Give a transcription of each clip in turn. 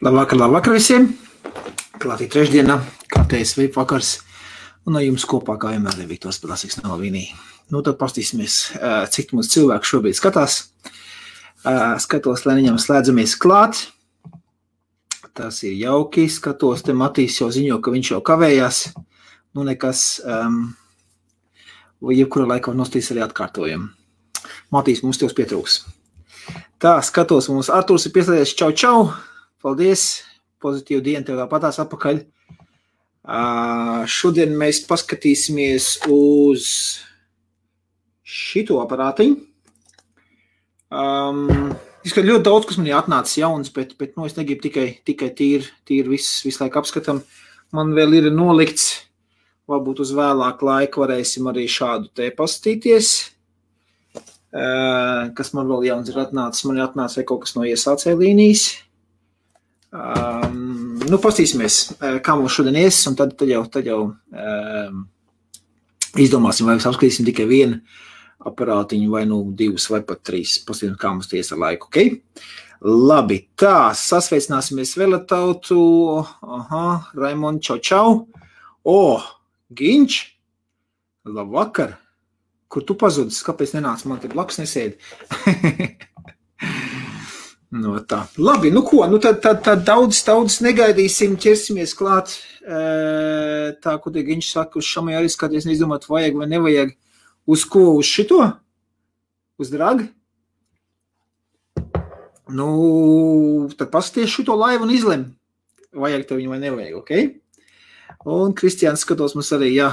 Labvakar visiem! Klātī trešdienā, kārtējs veip vakars. Un ar jums kopā, kā vienmēr, ir Viktors Padasīgs no Vinī. Tad pastīsimies, cik mums cilvēku šobrīd skatās. Skatos, lai viņam slēdzamies klāt. Tas ir jauki. Skatos, te Matīs jau ziņo, ka viņš jau kavējās. Nekas, jebkura laika var nostīs arī atkārtojam. Matīs, mums tev pietrūks. Tā, skatos, mums Artūrs ir pieslēdzies. Čau! Paldies! Pozitīvu dienu tev tāpatās atpakaļ. Šodien mēs paskatīsimies uz šito aparātiņu. Izskat ļoti daudz, kas man ir atnācis jauns, bet es negribu tikai tīri visu laiku apskatam. Man vēl ir nolikts, varbūt uz vēlāku laiku varēsim arī šādu te pastīties. Kas man vēl jauns ir atnācis. Man ir atnācis kaut kas no iesācēja līnijas. Pastīsimies, kā mums šodien ies, un tad jau izdomāsim, vai mēs apskatīsim tikai vienu aparātiņu, vai divus, vai pat trīs. Pastīsim, kā mums ies ar laiku, ok? Labi, tā, sasveicināsimies vēl ar tautu. Raimond, čau. Giņš, labvakar. Kur tu pazudis? Kāpēc nenāc? Man te blakus nesēdi. Tā. Labi, tad daudz negaidīsim, ķersimies klāt. Tā, ko te Giņš saka, uz šamai arī skaties, neizdomāt, vajag vai nevajag. Uz ko? Uz šito? Uz dragi? Tad pasties šito laivu un izlem. Vajag tev viņu vai nevajag, ok? Un Kristiāns skatos mums arī, jā.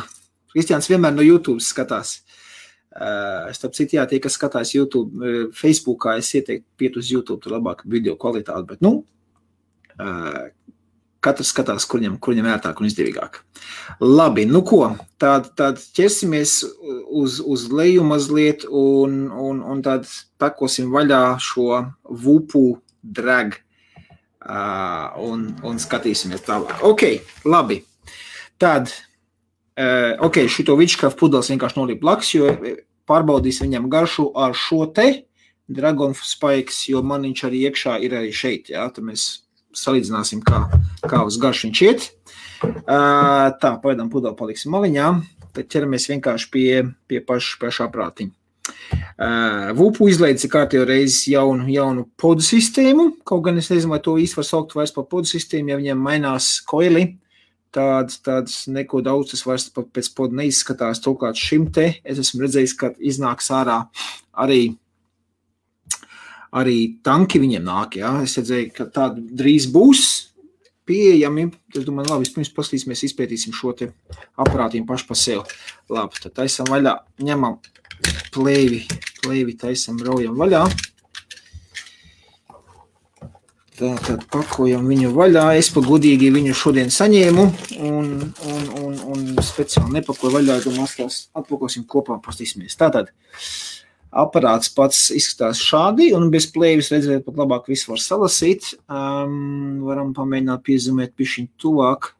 Kristiāns vienmēr no YouTube skatās. Starp citu, jā, tie, kas skatās YouTube, Facebookā, es ieteiktu piet uz YouTube, tur labāk video kvalitāti, bet, katrs skatās, kur viņam ērtāk un izdevīgāk. Labi, tad ķersimies uz leju mazliet un tad pakosim vaļā šo Vupu drag un skatīsimies tālāk. Ok, labi. Tad, šito Witchcraft pudeles vienkārši noliek blakus, jo pārbaudīs viņam garšu ar šo te Dragon Spikes, jo man viņš arī iekšā ir arī šeit, jā, tad mēs salīdzināsim, kā uz garšu viņš iet. Tā, pagaidām pudeli paliksim maliņā, tad ķeramies vienkārši pie paša prātiņa. Vupu izlaides ir kārtējo reizi jaunu podu sistēmu, kaut gan es nezinu, vai to īsti var saukt vairs par podu sistēmu, ja viņiem mainās koili. Tāds neko daudz tas vairs pēc podu neizskatās. Turklāt šim te es esmu redzējis, ka iznāks ārā arī tanki viņiem nāk. Jā. Es redzēju, ka tādi drīz būs pieejami. Es domāju, labi, vispirms paskatīsimies, izpētīsim šo te aparātīm paši pa sev. Labi, tad taisam vaļā, ņemam plēvi taisam, raujam vaļā. Tad pakojam viņu vaļā. Es pa godīgi viņu šodien saņēmu un speciāli nepakoju vaļā, domās tās atpakosim kopā un pastīsimies. Tātad aparāts pats izskatās šādi un bez plēvis redzēt pat labāk visu var salasīt. Varam pamēģināt piezumēt pišķiņ tuvāk.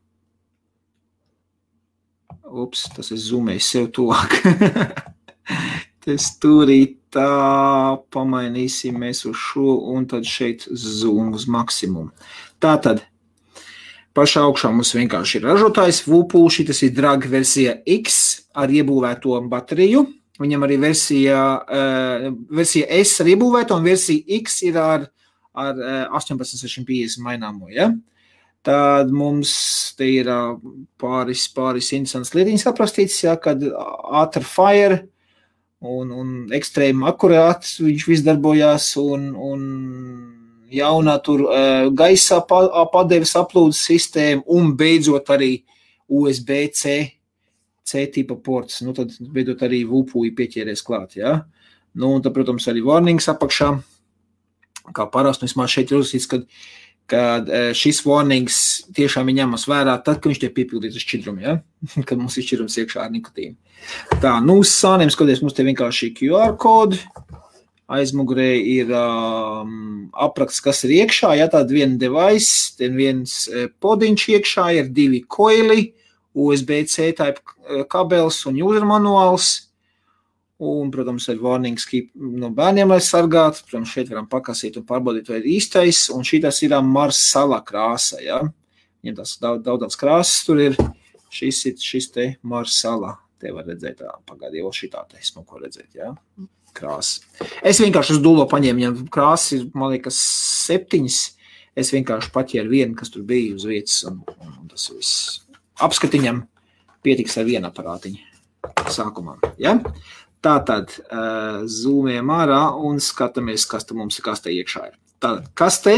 Tas es zumēju sev tuvāk. Tas turīt. Tā pamainīsim mēs uz šo un tad šeit zoom uz maksimumu. Tātad pašā augšā mums vienkārši ir ražotājs Vupu, šitas ir drag versija X ar iebūvēto bateriju. Viņam arī versija S ar iebūvēto un versija X ir ar 18650 maināmo, ja? Tad mums te ir pāris interesants lietiņas aprastīts, ja, kad ātri fire un ekstrēmi akurāts viņš viss darbojās un jaunā tur gaisā padeves aplūdes sistēma un beidzot arī USB-C tipa ports. Tad beidzot arī Vupu pieķēries klāt, jā. Un tad, protams, arī warnings apakšā. Kā parasti, vismaz šeit ir uzsīts, kad šis warnings tiešām ir ņemas vērā tad, kad viņš tiek piepildīts uz šķidrumu, ja? Kad mums ir šķidrums iekšā ar nikotīnu. Tā, uz sāniem skaties, mums te vienkārši QR kodi, aizmugurē ir apraksts, kas ir iekšā, ja tāda viena device, tad viens podiņš iekšā, ir 2 koili, USB-C type kabels un user manuāls, Un, protams, ir warnings keep no bērniem aizsargāt. Protams, šeit varam pakasīt un pārbaudīt, vai ir īstais. Un šitas ir Marsala krāsa, ja? Viņam tās daudz krāsas tur ir. Šis te Marsala. Te var redzēt, pagaidi, jau šitā te smuko redzēt, ja? Krāsa. Es vienkārši uz dūlo paņēmu, viņam krāsas ir, man liekas, 7. Es vienkārši paķēru vienu, kas tur bija uz vietas, un tas viss. Apskatiņam pietiks ar vienu aparātiņu sākumā, ja? Tātad zūmējam ārā un skatāmies, kas te mums ir kastē iekšā ir. Tātad kastē,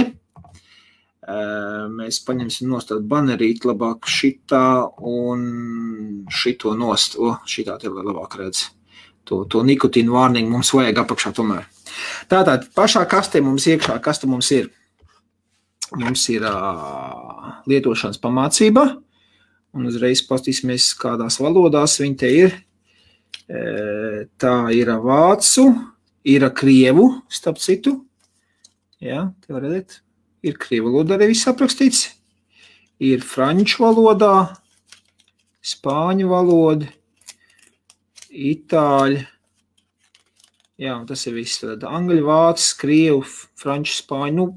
mēs paņemsim nost tādu banerīt labāk šitā un šito nost. Šitā te labāk redz. To nikotīnu warning mums vajag apakšā tomēr. Tātad pašā kastē mums iekšā, kas te mums ir? Mums ir lietošanas pamācība un uzreiz pastīsimies, kādās valodās viņi te ir. Tā ir vācu, ir krievu, starp citu. Jā, te var redzēt. Ir krievu valodā arī viss aprakstīts. Ir franču valodā, spāņu valoda, itāļu. Jā, un tas ir viss. Tad angļu, vācu, krievu, franču, spāņu,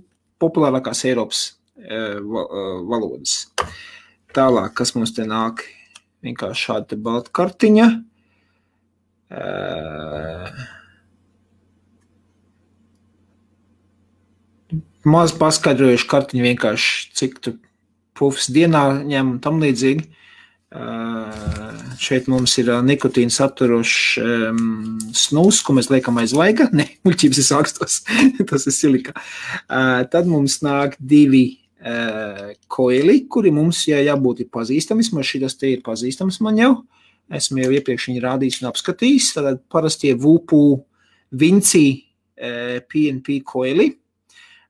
populārākās Eiropas valodas. Tālāk, kas mums te nāk? Vienkārši šāda te balta kartiņa. Maz paskaidrojuši kartiņu vienkārši, cik tu pufs dienā ņem un tam līdzīgi. Šeit mums ir nikotīna saturošs snus, ko mēs liekam aiz vaiga. Ne, muļķības es sākstos, tas ir silika. Tad mums nāk 2 koili, kuri mums jābūt pazīstami. Šitas te ir pazīstams man jau. Esmu jau iepriekš viņu rādījis un apskatījis. Tātad parastie Vupu Vinci PNP koili.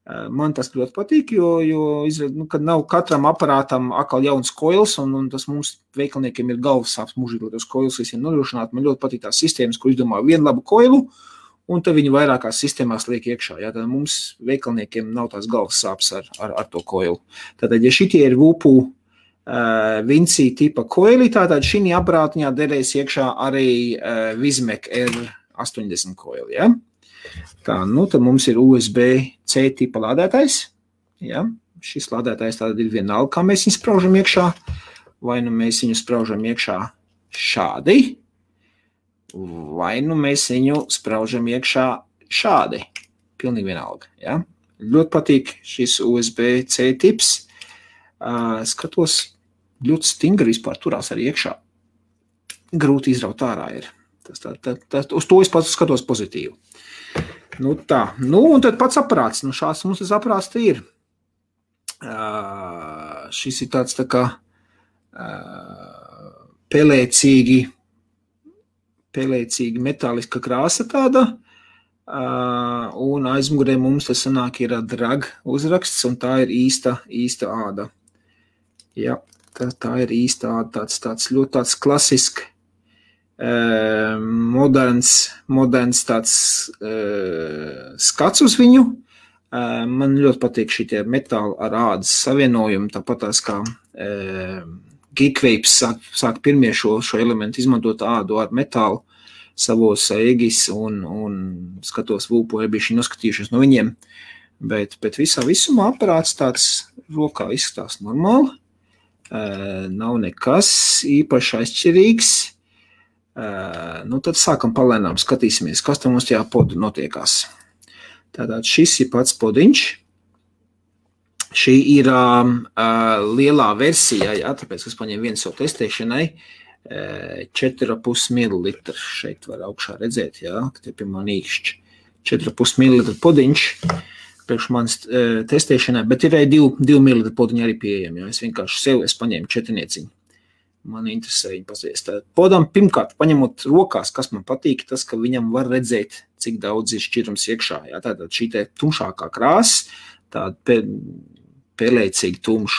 Man tas ļoti patīk, jo kad nav katram aparātam atkal jauns koils, un tas mums veikalniekiem ir galvas sāps mūžīgi tos koils visiem nodrošināt. Man ļoti patīk tās sistēmas, kur izdomā vienu labu koilu, un tad viņi vairākās sistēmās liek iekšā. Jā, tad mums veikalniekiem nav tās galvas sāps ar to koilu. Tātad, ja šitie ir Vupu Vinci tipa koili, tātad šī aparātiņā derēs iekšā arī Vizmek R80 koili, ja? Tā, tad mums ir USB-C tipa lādētājs, ja? Šis lādētājs tātad ir vienalga, kā mēs viņu spraužam iekšā, vai nu mēs viņu spraužam iekšā šādi, vai nu mēs viņu spraužam iekšā šādi, pilnīgi vienalga, ja? Ļoti patīk šis USB-C tips, skatos, ļoti stingri vispār turās arī iekšā. Grūti izraut ārā ir. Uz to es pats skatos pozitīvi. Tā. Un tad pats aparāts. Šāds mums tas aparāts te ir. Šis ir tāds tā kā pelēcīgi metāliska krāsa tāda. Un aizmugurē mums tas sanāk ir drag uzraksts, un tā ir īsta āda. Jā, tā ir īsta āda, tāds ļoti tāds klasisks, moderns tāds skats uz viņu. Man ļoti patīk šitie metāli ar ādas savienojumi, tāpat tās kā Geekwapes sāk pirmie šo elementu izmantot ādu ar metālu savos egis un skatos Vupu, bija šī noskatījušies no viņiem, bet visumā aparāts tāds rokā izskatās normāli. Nav nekas īpaši aizšķirīgs. Tad sākam palēnām, skatīsimies, kas tam mums tajā podu notiekās. Tātad šis ir pats podiņš. Šī ir lielā versija, jā, tāpēc, kas paņem viens savu testēšanai, 4,5 ml. Šeit var augšā redzēt, jā, ka te pie man īkšķi. 4,5 ml podiņš. Priekš manas testēšanai, bet ir arī 2 ml podiņi arī pieejami. Ja? Es vienkārši es paņēmu 4. Man interesē viņu pasviest. Podam pirmkārt, paņemot rokās, kas man patīk, tas, ka viņam var redzēt, cik daudz ir šķirums iekšā. Ja? Tātad šī te tumšākā krāsa, tāda pelēcīgi tumšs.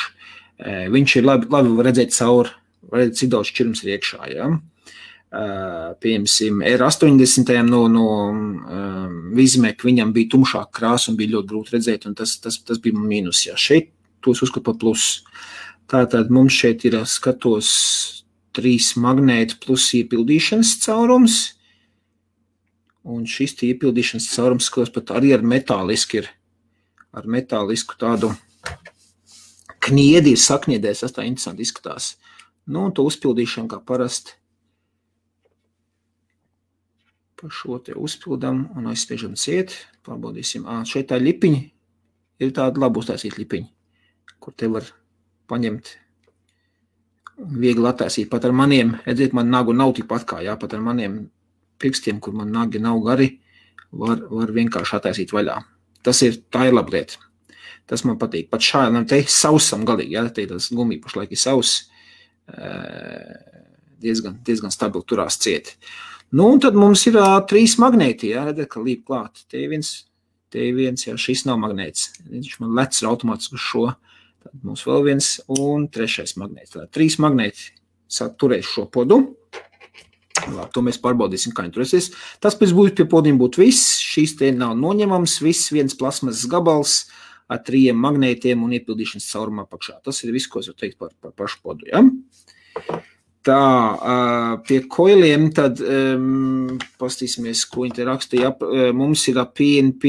Viņš ir labi redzēt cauri, var redzēt, cik daudz šķirums ir iekšā. Ja? Piemēram, R80 no Vizmek viņam bija tumšāka krāsa un bija ļoti grūti redzēt, un tas bija mīnus. Ja. Šeit tos uzskat par plus. Tātad mums šeit ir skatos 3 magnēti plus iepildīšanas caurums. Un šis iepildīšanas caurums, kas pat arī ar metālisku tādu kniedi ir sakniedēs, tas tā interesanti izskatās. Nu, un to uzpildīšanu kā parasti pa šo te uzpildam un aizspiežam ciet. Pārbaudīsim. Šeit tā ļipiņi ir tāda labi uztaisīt ļipiņi, kur te var paņemt viegli attaisīt. Pat ar maniem, redziet, man nagu nav tikpat kā, jā, pat ar maniem pirkstiem, kur man nagi nav gari, var vienkārši attaisīt vaļā. Tā ir laba lieta. Tas man patīk. Pat šādam te sausam galīgi, jā, te tas gumija pašlaik ir sauss, diezgan stabili turās cieti. Nu, un tad mums ir 3 magnēti, jā, redzēt, ka līp klāt. Te viens, jā, šis nav magnēts. Viņš man lec automātiski uz šo. Tad mums vēl viens un 3. magnēts. Tad 3 magnēti turēs šo podu. Labi, to mēs pārbaudīsim, kā viņi turēsies. Tas pēc būtu pie podiem būtu viss. Šīs te nav noņemams. Viss viens plasmasas gabals ar 3 magnētiem un iepildīšanas caurumā apakšā. Tas ir viss, ko es varu teikt par pašu podu, jā. Tā, pie koiliem tad pastīsimies, ko viņi te rakstīja. Mums ir PNP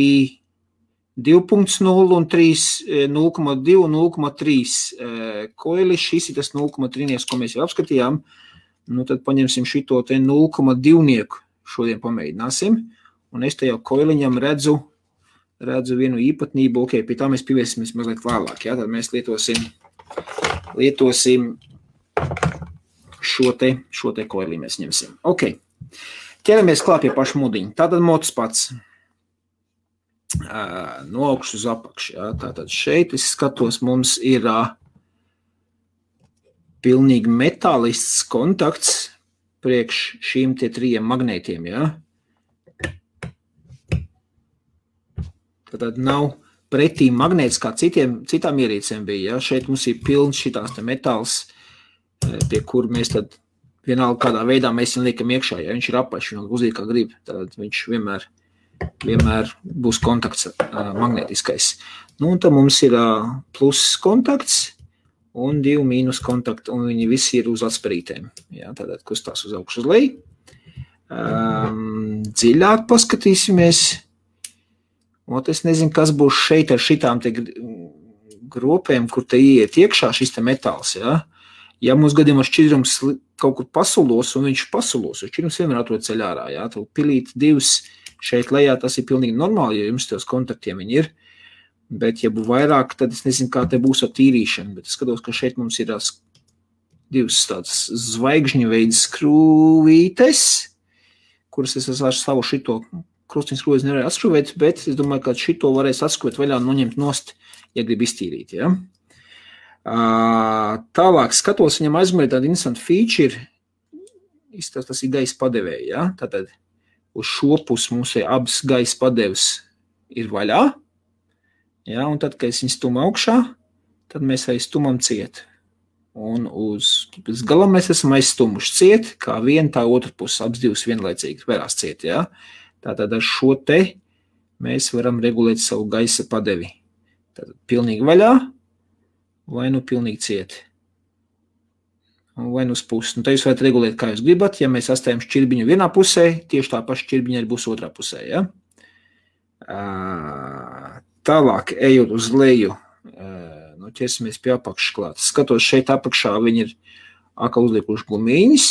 2.0 un 0.2 un 0.3 koili. Šis ir tas 0.3, ko mēs jau apskatījām. Nu, tad paņemsim šito te 0.2 šodien pamēģināsim. Un es te jau koiliņam redzu vienu īpatnību. Ok, pie tā mēs pievēsimies mazliet vēlāk. Jā? Tad mēs lietosim šo te koilī mēs ņemsim. Ok, ķeramies klāt pie pašu mudiņu. Tātad mods pats no augšas uz apakšu. Jā. Tātad šeit es skatos, mums ir pilnīgi metālisks kontakts priekš šīm te 3 magnētiem. Jā. Tātad nav pretī magnēts, kā citām ierīcēm bija. Jā. Šeit mums ir pilns šitās te metāls, pie kur mēs tad vienalga kādā veidā mēs viņu liekam iekšā, ja viņš ir apaļš, viņš uzīt kā grib, tad viņš vienmēr būs kontakts magnētiskais. Nu, un tad mums ir plus kontakts un 2 mīnus kontakti, un viņi visi ir uz atsperītēm. Jā, tātad kustās uz augšu uz leju. Dziļāk paskatīsimies. Un es nezinu, kas būs šeit ar šitām te gropēm, kur te ieiet iekšā šis te metāls, jā. Ja mums gadījumā šķidrums kaut kur pasulos, un viņš pasulos, jo šķidrums vienmēr atrod ceļ ārā, jā, tad pilīt 2 šeit lejā, tas ir pilnīgi normāli, jo jums tos kontaktiem viņi ir, bet ja būs vairāk, tad es nezinu, kā te būs ar tīrīšanu, bet es skatos, ka šeit mums ir 2 tādas zvaigžņu veids skrūvītes, kuras es ar savu šito krustiņas skrūvis nevarēju atskrūvēt, bet es domāju, ka šito varēs atskrūvēt vaļā un noņemt nost, ja grib iztīrīt, jā. Tālāk skatos, viņam aizmērī tāda interesanta feature, tas ir gaisa padevēja, ja? Tātad uz šo pusi mums ir abas gaisa padeves ir vaļā, ja? Un tad, kad es viņu stumu augšā, tad mēs arī stumam ciet. Un uz galam mēs esam aizstumuši ciet, kā viena, tā otra pusi, abas divas vienlaicīgi vērās ciet, ja? Tātad ar šo te mēs varam regulēt savu gaisa padevi. Tātad pilnīgi vaļā, vai nu pilnīgi cieti, vai nu uz pusi. Nu, te jūs varat regulēt, kā jūs gribat. Ja mēs astējam šķirbiņu vienā pusē, tieši tā paša šķirbiņa arī būs otrā pusē. Ja? Tālāk, ejot uz leju, ķersimies pie apakšas klāt. Skatos, šeit apakšā viņi ir atkal uzliekuši gumīņas.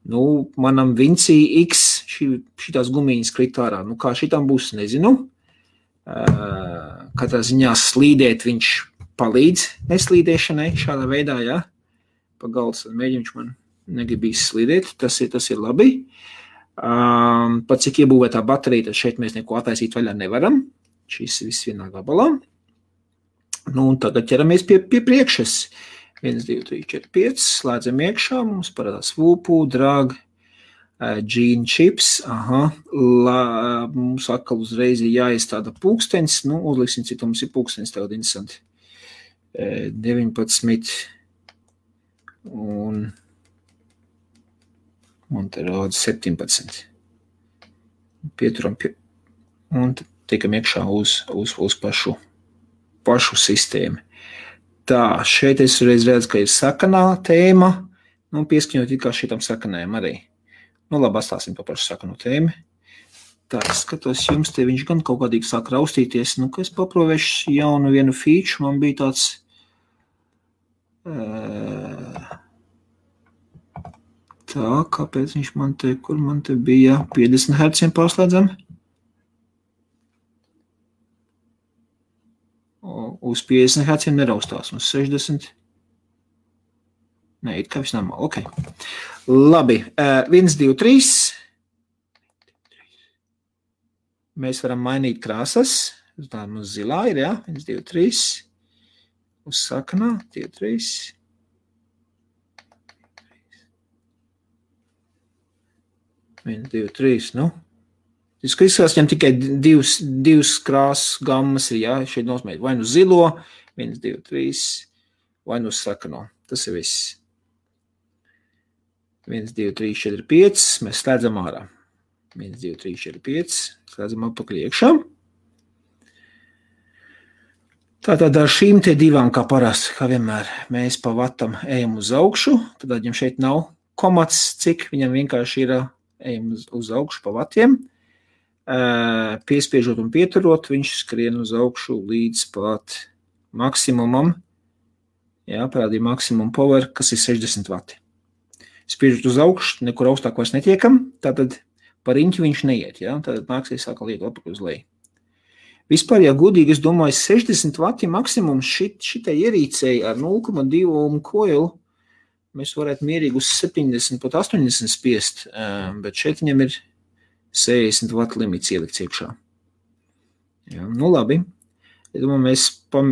Nu, manam Vinci X šitās gumīņas krit ārā. Nu, kā šitām būs, nezinu. Katrā ziņā slīdēt viņš palīdz neslīdēšanai šādā veidā, jā. Pa galds mēģinš man negribīs slīdēt, tas ir labi. Pat cik iebūvētā baterija, tad šeit mēs neko attaisīt vaļā nevaram. Šis viss vienā gabalā. Nu, un tagad ķeramies pie priekšas. 1, 2, 3, 4, 5, slēdzam iekšā, mums parādās VUPU, drag, gene chips, mums atkal uzreiz ir jāiestāda pulkstenis, nu, uzliksim, cik mums ir pulkstenis, tagad interesanti. 19 un te rāda 17. Pieturam un tiekam iekšā uz pašu sistēmu. Tā, šeit es redzu, ka ir sakanā tēma, nu, pieskaņot it kā šitam sakanējam arī. Nu, labi, atstāsim pa pašu sakanu tēmu. Tā, es skatos jums, te viņš gan kaut kādīgi sāk raustīties. Nu, ka es paprovēšu jaunu vienu feature, man bija tāds... Tā, kāpēc viņš man te, kur man te bija 50 Hz pārslēdzam? Uz 50 Hz neraustās, uz 60. Nē, it kā viss normāli, ok. Labi, 1, 2, 3. Mēs varam mainīt krāsas. Tā mums zilā ir, jā? 1, 2, 3. Uz sakanā, 2, 3. Viens, 2, 3, nu. Es izskatās, viņam tikai divas krāsas gammas ir, jā, šeit nosmēt. Vai nu zilo, 1, 2, 3, vai nu sakano. Tas ir viss. 1, 2, 3, 4, 5, mēs slēdzam ārā. 1, 2, 3, 4, 5, slēdzam apakaļ iekšā. Tātad ar šīm te divām, kā parasti, kā vienmēr, mēs pa vatam ejam uz augšu, tad viņam šeit nav komats, cik viņam vienkārši ir ejam uz augšu pa vatiem. Piespiežot un pieturot, viņš skrien uz augšu līdz pat maksimumam. Jā, parādīja maksimum power, kas ir 60 vati. Spiežot uz augšu, nekur augstāk vairs netiekam, tātad par riņķi viņš neiet, jā, tātad nāksies sākal iet apakaļ uz leju. Vispār, ja godīgi, es domāju, 60 vati maksimums šitai ierīcei ar 0,2 ohm koilu, mēs varētu mierīgi uz 70, pat 80 spiest, bet šeit viņam ir 60 vatu limits ielikts iekšā. Jā, nu labi. Es domāju,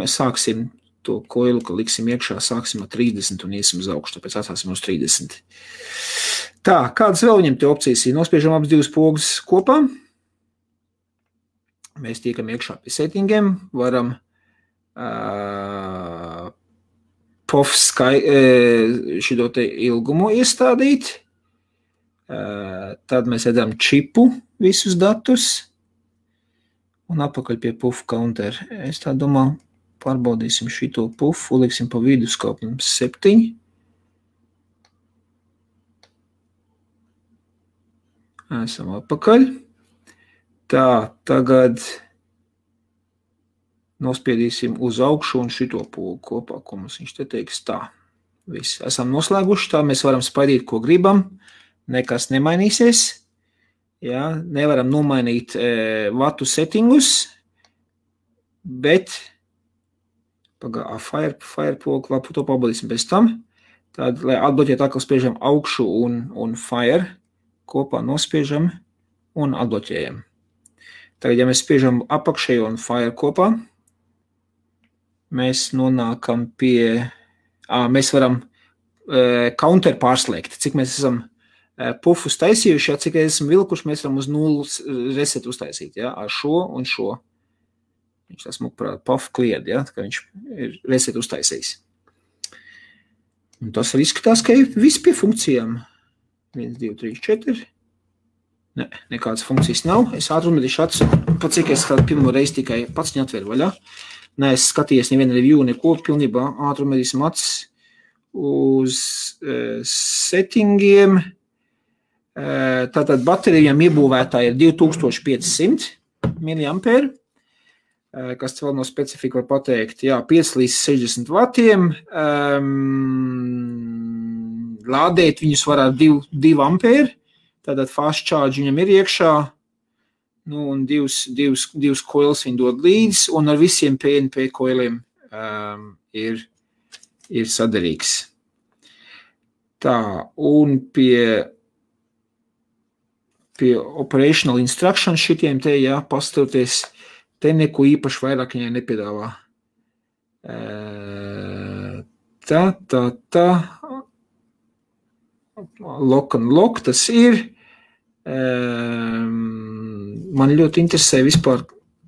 mēs sāksim to koilu, ka liksim iekšā, sāksim ar 30 un iesim uz augšu, tāpēc atstāsim uz 30. Tā, kādas vēl viņam te opcijas ir? Nospiežam abas divas pogas kopā. Mēs tiekam iekšā pie settingiem, varam POF šito te ilgumu iestādīt. Tad mēs redzam čipu visus datus un apakaļ pie puff counter. Es tā domāju, pārbaudīsim šito puffu, liksim pa vidu skaupam 7. Esam apakaļ. Tā, tagad nospiedīsim uz augšu un šito pogu kopā, ko mums viņš te teiks. Tā, viss. Esam noslēguši, tā mēs varam spaidīt, ko gribam. Nekas nemainīsies. Jā, nevaram nomainīt vatu settingus, bet Firepogu, labi, to pabaudīsim pēc tam. Tad, lai atbloķēt, atkal spiežam augšu un Fire kopā nospiežam un atbloķējam. Tagad, ja mēs spiežam apakšējo un Fire kopā, mēs nonākam pie, mēs varam counter pārslēgt, cik mēs esam pufus taisījuši, ja, cik esam vilkuši, mēs varam uz 0 reset uztaisīt, ja, ar šo un šo. Viņš tas mūk puff klied, ja, tā kā viņš ir reset uztaisījis. Un tas arī izskatās, ka ir viss pie funkcijām. 1, 2, 3, 4. Ne, nekādas funkcijas nav. Es ātrumedīšu acu, pat cik es kādu pirmo reizi tikai pats viņu atveru vaļā. Ne, es skatījies nevienu review, neko pilnībā ātrumedīsim acis uz settingiem. Tātad baterijām iebūvētā ir 2500 mAh. Kas vēl no specifika var pateikt, jā, 5 līdz 60 vatiem, lādēt viņus var ar 2 ampēri, tātad fast charge viņam ir iekšā, nu, un divas koilas viņi dod līdz, un ar visiem PNP koiliem ir sadarīgs. Tā, un pie operational instruction šitiem te, jā, pastoties, te neko īpaši vairāk viņai nepiedāvā. Tā. Lock and lock tas ir. Man ļoti interesē vispār.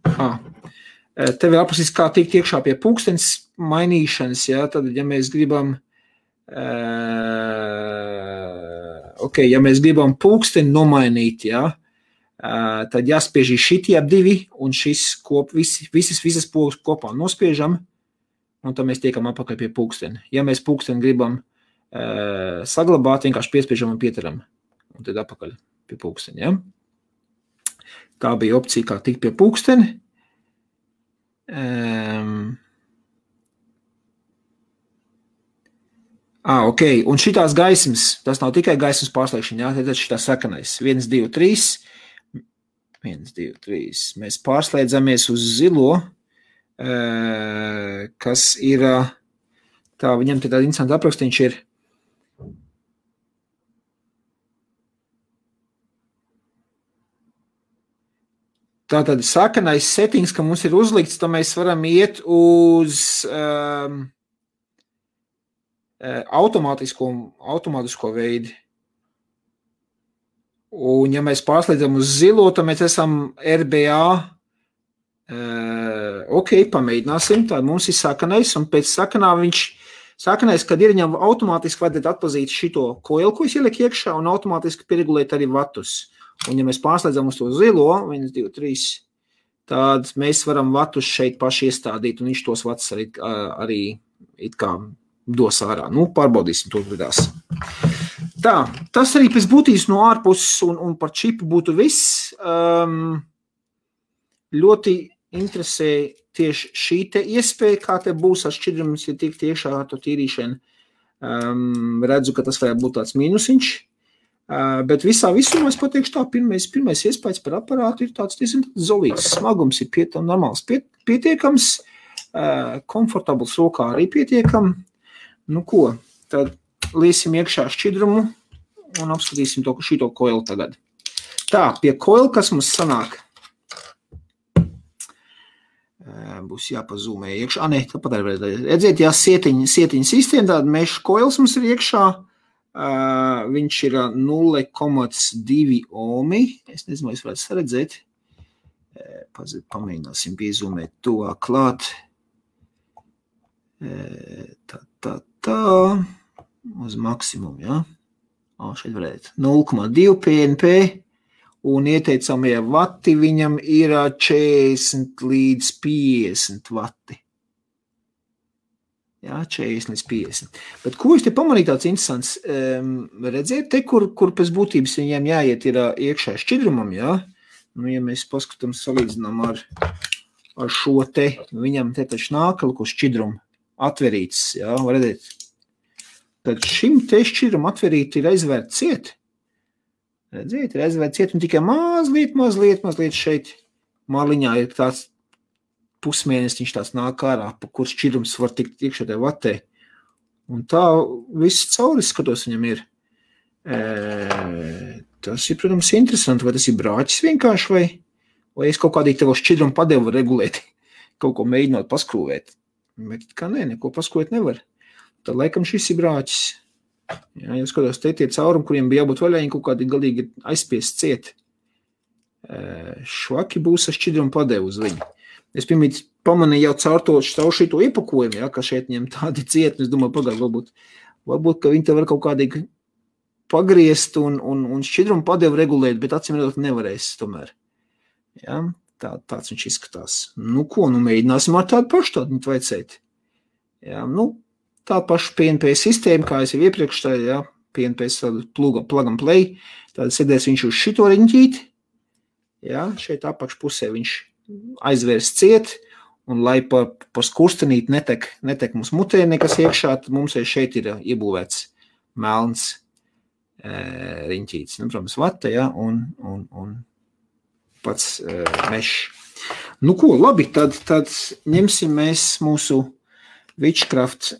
Te vēl aprakstīs, kā tikt iekšā pie pulkstenes mainīšanas, jā, tad, ja mēs gribam ja mēs gribam pulksteni nomainīt, jā, tad jāspiež šitie ap 2 un šis visas pogas kopā nospiežam, un tad mēs tiekam apakaļ pie pulksteni. Ja mēs pulksteni gribam saglabāt, vienkārši piespiežam un pieturam, un tad apakaļ pie pulksteni. Ja? Tā bija opcija, kā tikt pie pulksteni. Ok, un šitās gaismas, tas nav tikai gaismas pārslēgšana, jā, tad šitā sakanais. 1, 2, 3. 1, 2, 3. Mēs pārslēdzamies uz zilo, kas ir, tā viņam te tāda interesanta aprakstīņš ir. Tātad sakanais settings, ka mums ir uzlikts, tad mēs varam iet uz automātisko veidi. Un ja mēs pārslēdzam uz zilo, tad mēs esam RBA. Ok, pamēģināsim. Tad mums ir sakanais, un pēc sakanais, kad ir viņam automātiski vajadzētu atpazīt šito koilu, ko es ielieku iekšā, un automātiski pieregulēt arī vatus. Un ja mēs pārslēdzam uz to zilo, 1, 2, 3, tad mēs varam vatus šeit paši iestādīt, un viņš tos vatus arī it kā dos ārā. Nu, pārbaudīsim to lidās. Tā, tas arī pēc būtības no ārpuses un par čipu būtu viss. Ļoti interesē tieši šī te iespēja, kā te būs ar šķidrumus, ja tiek tiešā ar to tīrīšanu. Redzu, ka tas varētu būt tāds mīnusiņš. Bet visā visumā es pateikšu tā, pirmais iespējas par aparātu ir tāds diezgan zolīts. Smagums ir normāls pietiekams, komfortabls rokā arī pietiekam. Nu ko, tad liesim iekšā šķidrumu un apskatīsim šito koilu tagad. Tā, pie koilu, kas mums sanāk? Būs jāpazūmē iekšā. Ne, tāpat arī redzēt, jā, sietiņa sistēma, tāda meša koils mums ir iekšā. Viņš ir 0,2 ohmi. Es nezinu, vai es varētu saredzēt. Pamēģināsim piezūmēt to klāt. Tā. Uz maksimumu, jā. Šeit varētu. 0,2 PNP. Un ieteicamie vati viņam ir 40 līdz 50 vati. Jā, 40 līdz 50. Bet ko es te pamanīju tāds interesants? Redzēt, te, kur pēc būtības viņiem jāiet ir iekšā šķidrumam, jā? Nu, ja mēs paskatām, salīdzinām ar šo te, viņam te taču nākalu, kur šķidrumu atverīts, jā, var redzēt. Tad šim te šķidrumu atverīt ir aizvērt ciet. Redzēt, ir aizvērt ciet un tikai mazliet šeit maliņā ir tāds pusmēnesiņš tāds nāk ārā, pa kur šķidrums var tikt iekšā tajā vatē. Un tā viss cauri skatos viņam ir. Tas ir, protams, interesanti, vai tas ir brāķis vienkārši, vai es kaut kādīgi tev šķidrumu padevu regulēt, kaut ko mēģinot paskrūvēt. Bet kā neko paskrūvēt nevar. Tad laikam šis ir brāķis. Jā, jau skatos, te tie caurumi, kuriem bija jābūt vaļā, viņi kaut kādi galīgi aizspiest ciet. Švaki būs ar šķidrumu padevu uz viņu. Es pirmīt pamanīju jau caur šito iepakojumu, ja, ka šeit ņem tādi cieti, es domāju, pagāju, varbūt, ka viņi te var kaut kādīgi pagriezt un šķidrumu padevu regulēt, bet acīm redzot nevarēs tomēr. Ja, tāds viņš izskatās. Nu ko, mēģināsim ar tādu pašu tādu vajadzēt. Ja, tā paša PNP sistēma, kā es jau iepriekš tā, ja, PNP plug and play, tad sēdēs viņš uz šito riņķīti, ja, šeit apakšpusē viņš aizvērs ciet, un lai par skurstenīt netek mums mutē nekas iekšā, tad mums šeit ir iebūvēts melns riņķītis. Protams, vata, ja, un pats mešs. Nu ko, labi, tad ņemsim mēs mūsu Witchcraft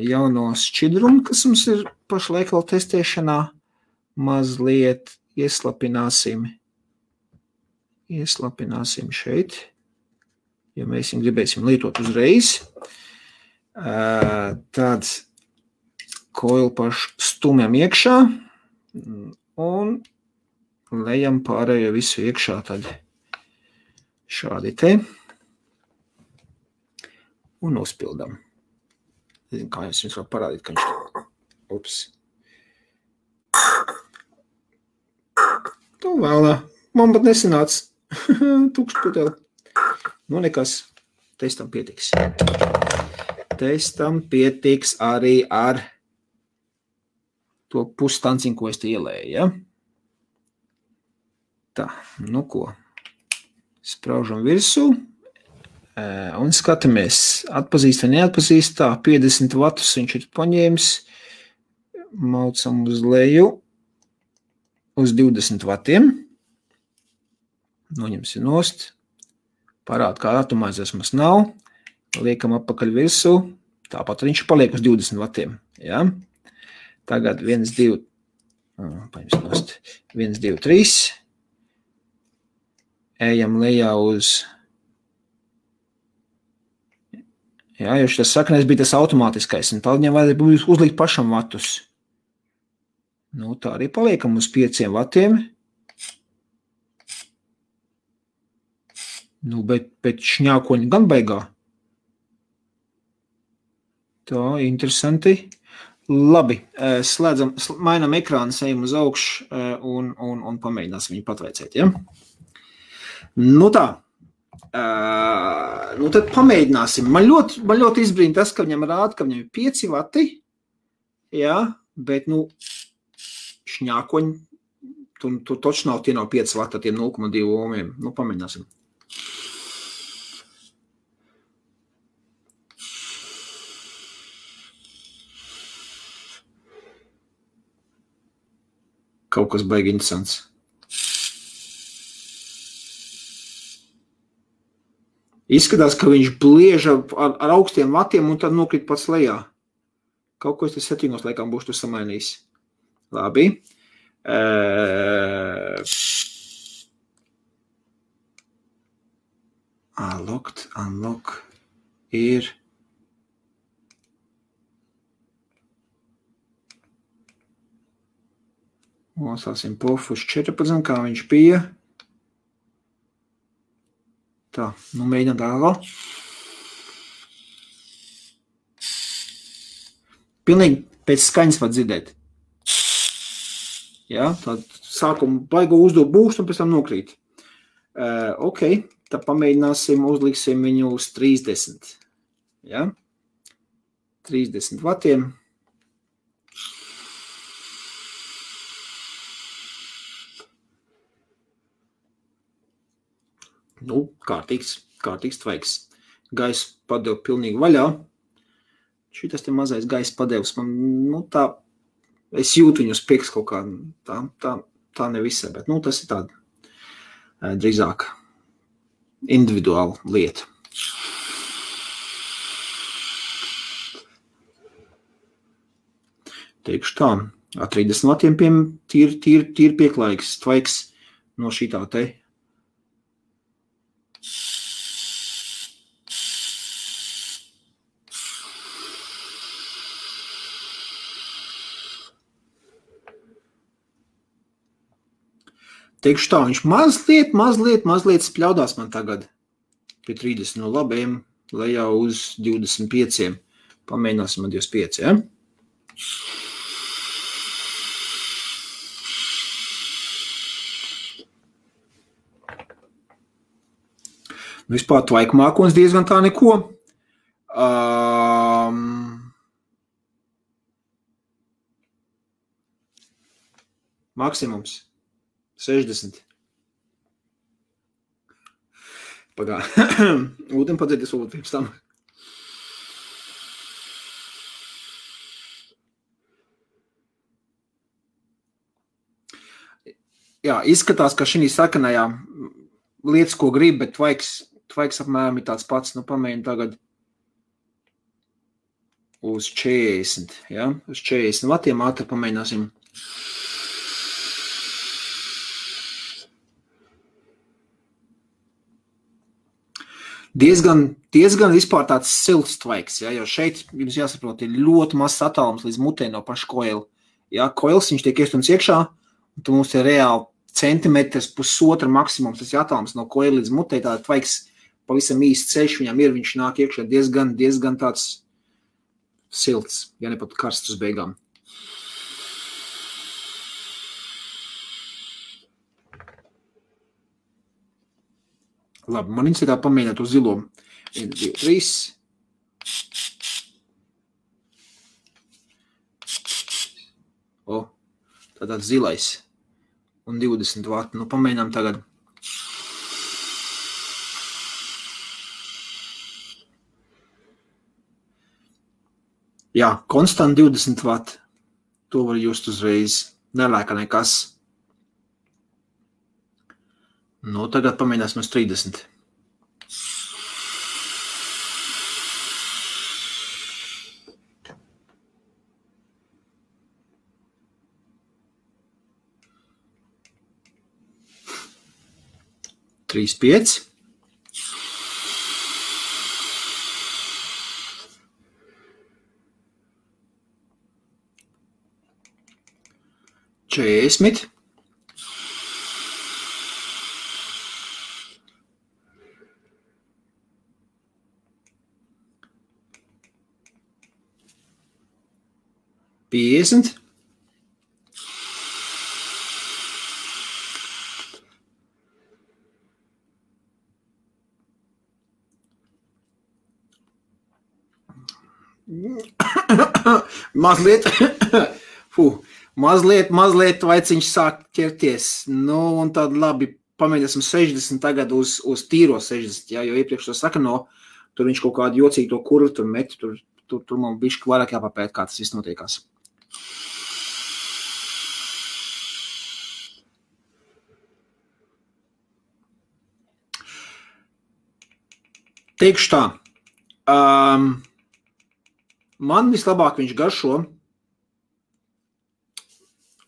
jauno šķidrumu, kas mums ir pašlaik vēl testēšanā, mazliet ieslapināsim šeit, ja mēs viņu gribēsim lietot uzreiz. Tad koilu pašu stumjam iekšā un lejam pārējo visu iekšā tad šādi te un uzpildam. Nezinu, kā jums var parādīt, ka viņš to vēlā. Man pat nesanāca. Tukšs puteli. Nu, nekas. Testam pietiks. Testam pietiks arī ar to pustanciņu, ko es te ielēju, ja? Tā, nu ko. Spraužam virsū. Un skatāmies, atpazīst vai neatpazīst. Tā, 50 vatus viņš ir paņēmis. Maucam uz leju. Uz 20 vatiem. Noņemsim nost. Parāda, kā atomizēs mums nav. Liekam apakaļ virsū. Tāpat viņš paliek uz 20 vatiem. Ja? Tagad 1, 2, 3. Ejam lejā uz... Jā, jo šis sakanais bija tas automātiskais, un tad viņam vajadzēja uzlikt pašam vatus. Nu, tā arī paliekam uz 5 vatiem. Nu, bet šņākoņi gan beigā. Tā, interesanti. Labi, slēdzam, mainam ekrānu, ejam uz augšu un pamēģināsim viņu patveicēt, ja? Nu tā. Nu tad pamēģināsim. Man ļoti izbrīn tas, ka viņam rāda, ka viņam ir 5 vati, jā, bet, nu, šņākoņi, tur toči nav, tie nav 5 vati, tie 0,2 ohmiem. Nu, pamēģināsim. Kaut kas baigi interesants. Izskatās, ka viņš blieža ar augstiem vatiem un tad nokrīt pats lejā. Kaut ko es te settingos laikam būšu tur samainījis. Labi. Unlock ir... Nosāsim pofu uz 14, kā viņš bija. Tā, nu mēģinām tālāk. Pilnīgi pēc skaņas var dzirdēt. Jā, tad sākumu baigo uzdot būst un pēc tam nokrīt. Ok, tad pamēģināsim, uzliksim viņu uz 30. Jā, 30 vatiem. Nu, kārtīgs tvaiks. Gaisa padeva pilnīgi vaļā. Šitas te mazais gaisa padevs man, nu tā, es jūtu viņu uz priekš kaut kā, tā nevisai, bet, nu, tas ir tāda drīzāk individuāla lieta. Teikšu tā, ar 30 vatiem tīri pieklājīgs tvaiks no šitā te. Teikšu tā, viņš mazliet spļaudās man tagad pie 30. No labiem lejā uz 25. Pamēģināsim ar 25, ja? Vispār tvaiku mākonis diezgan tā neko. Maksimums 60. Pagā. Ūdeni padzēties pirms tam. Jā, izskatās, ka šī sakanajā lietas, ko grib, bet tvaiks apmēram ir tāds pats. Nu, pamēģinu tagad uz 40. Ja? Uz 40 vatiem ātri pamēģināsim. Diezgan vispār tāds silts tvaiks, ja? Jo šeit jums jāsaprot, ir ļoti mazs attālums līdz mutē no paša koila. Ja? Koils, viņš tiek iestumts iekšā, un tu mums ir reāli centimetrs, pusotra maksimums, tas ir attālums no koila līdz mutē, tāda tvaiks pavisam īsts ceļš, viņam ir, viņš nāk iekšā diezgan tāds silts, ja ne pat karsts uz beigām. Labi, man interesē tā pamēģināt uz zilo. 1, 2, 3. O, tāds zilais. un 20 vati. Nu, pamēģinām tagad. Jā, konstant 20 vati. To var just uzreiz. Nelēka nekas. Nu, tagad pamēģināsim uz 30. Trīs, 5. Četrdesmit. Piecdesmit. Mazliet vaiciņš sāk ķerties. Nu, un tad labi, pamēģināsim 60 tagad uz tīro 60, jā, jo iepriekš to saka, no, tur viņš kaut kādu jocīgu to kurvu tur met, tur man bišķi vairāk jāpapēt, kā tas viss notiekās. Teikšu tā, man vislabāk viņš garšo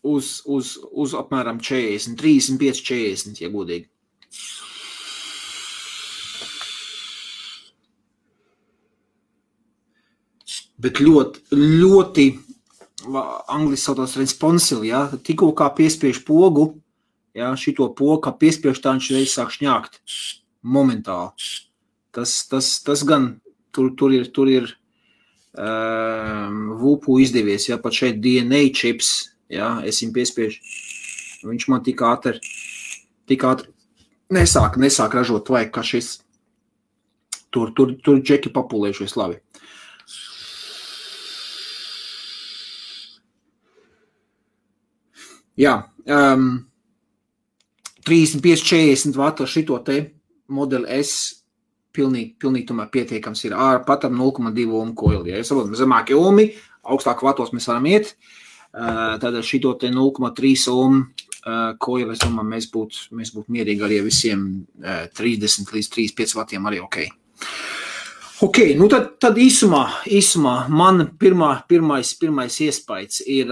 uz apmēram 40, 35, 40, ja godīgi. Bet ļoti angliski saucās responsive, ja, tikko kā piespiež pogu, ja, šito pogu, kā piespiež tā viņš reiz sāk šņākt momentāli. Tas gan tur ir VUPU izdevies, ja, pat šeit DNA chips, ja, es viņu piespiežu, viņš man tik ātri nesāk ražot vajag, kā šis, tur džeki papulējušies labi. Jā, 35, 40 vatu ar šito te modeli S pilnīgi tomēr pietiekams ir ar patam 0,2 omu koili. Ja saprotam, zemākie omi, augstāk vatos mēs varam iet, tad ar šito te 0,3 omu koili, es domāju, mēs būtu mierīgi arī visiem 30 līdz 35 vatiem arī ok. Ok, nu tad īsumā man pirmais iespējas ir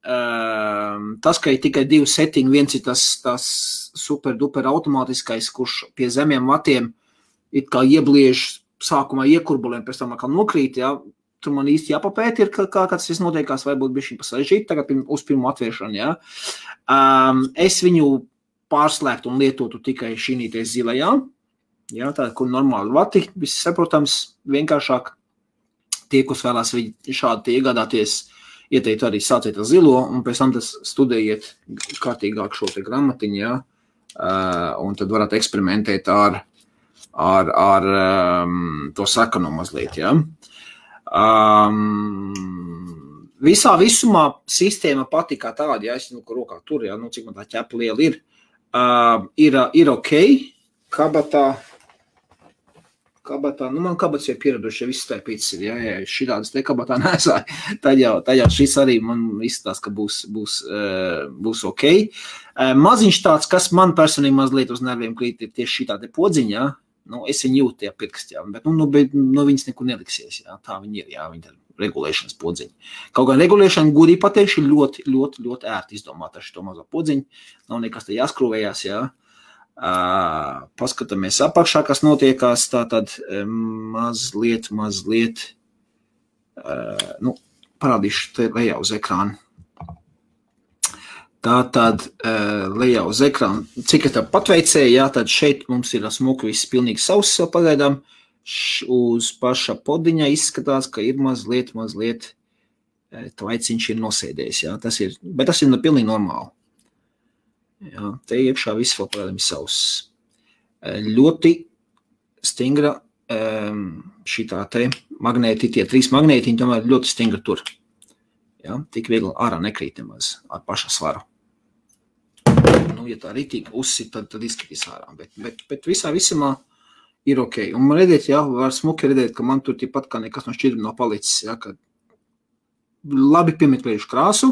tas, ka ir tikai 2 settingi, viens ir tas super duper automātiskais, kurš pie zemiem vatiem it kā iebliež sākumā iekurbulēm, pēc tam atkal nokrīt, ja, tur man īsti jāpapēt ir, kā tas viss notiekās, varbūt bišķi pasažīt, tagad uz pirmo atviešanu, ja. Es viņu pārslēgtu un lietotu tikai šīnīties zilajā, ja, tā, kur normāli vati, viss saprotams, vienkāršāk tie, kas vēlās šādi iegādāties, ieteikt arī sāciet ar zilo, un pēc tam tas studējiet kārtīgāk šo te gramatiņu, ja, un tad varat eksperimentēt ar to sakanu mazliet, ja. Visā visumā sistēma pati kā tāda, ja es rokā tur, ja, cik man tā ķepa liela ir ok, kabatā, man kabats jau pieraduši, ja viss taipīts ir, ja šitādas te kabatā nesāja, tad jau šis arī man izskatās, ka būs ok. Maziņš tāds, kas man personīgi mazliet uz nerviem krīt, ir tieši šitā te podziņa, ja. Nu, es viņu jūtu tajā pirkstā, bet viņas nekur neliksies, jā, tā viņi ir, jā, viņi ir regulēšanas podziņi. Kaut gan regulēšana, godīgi pateikšu, ir ļoti ērti izdomāt ar šito mazo podziņu, nav nekas te jāskrūvējās, jā. Paskatāmies apakšā, kas notiekās, tātad mazliet, parādīšu te lejā uz ekrānu. Tātad lejā uz ekrānu, cik es tā patveicēju, jā, tad šeit mums ir smuki viss pilnīgi sauss vēl pagaidām, uz paša podiņa izskatās, ka ir mazliet tvaiciņš ir nosēdējis, jā, bet tas ir pilnīgi normāli. Jā, te iekšā viss vēl pagaidām ir sauss. Ļoti stingra šitā te magnēti, tie 3 magnētiņi tomēr ļoti stingra tur. Jā, tik viegli ārā nekrīt nemaz ar paša svaru. ja tā ritīgi uzsit, tad izskatīs ārā. Bet visumā ir ok. Un man redzēt, var smuki redzēt, ka man tur tāpat kā nekas no šķidruma nav palicis, ka labi piemeklējuši krāsu.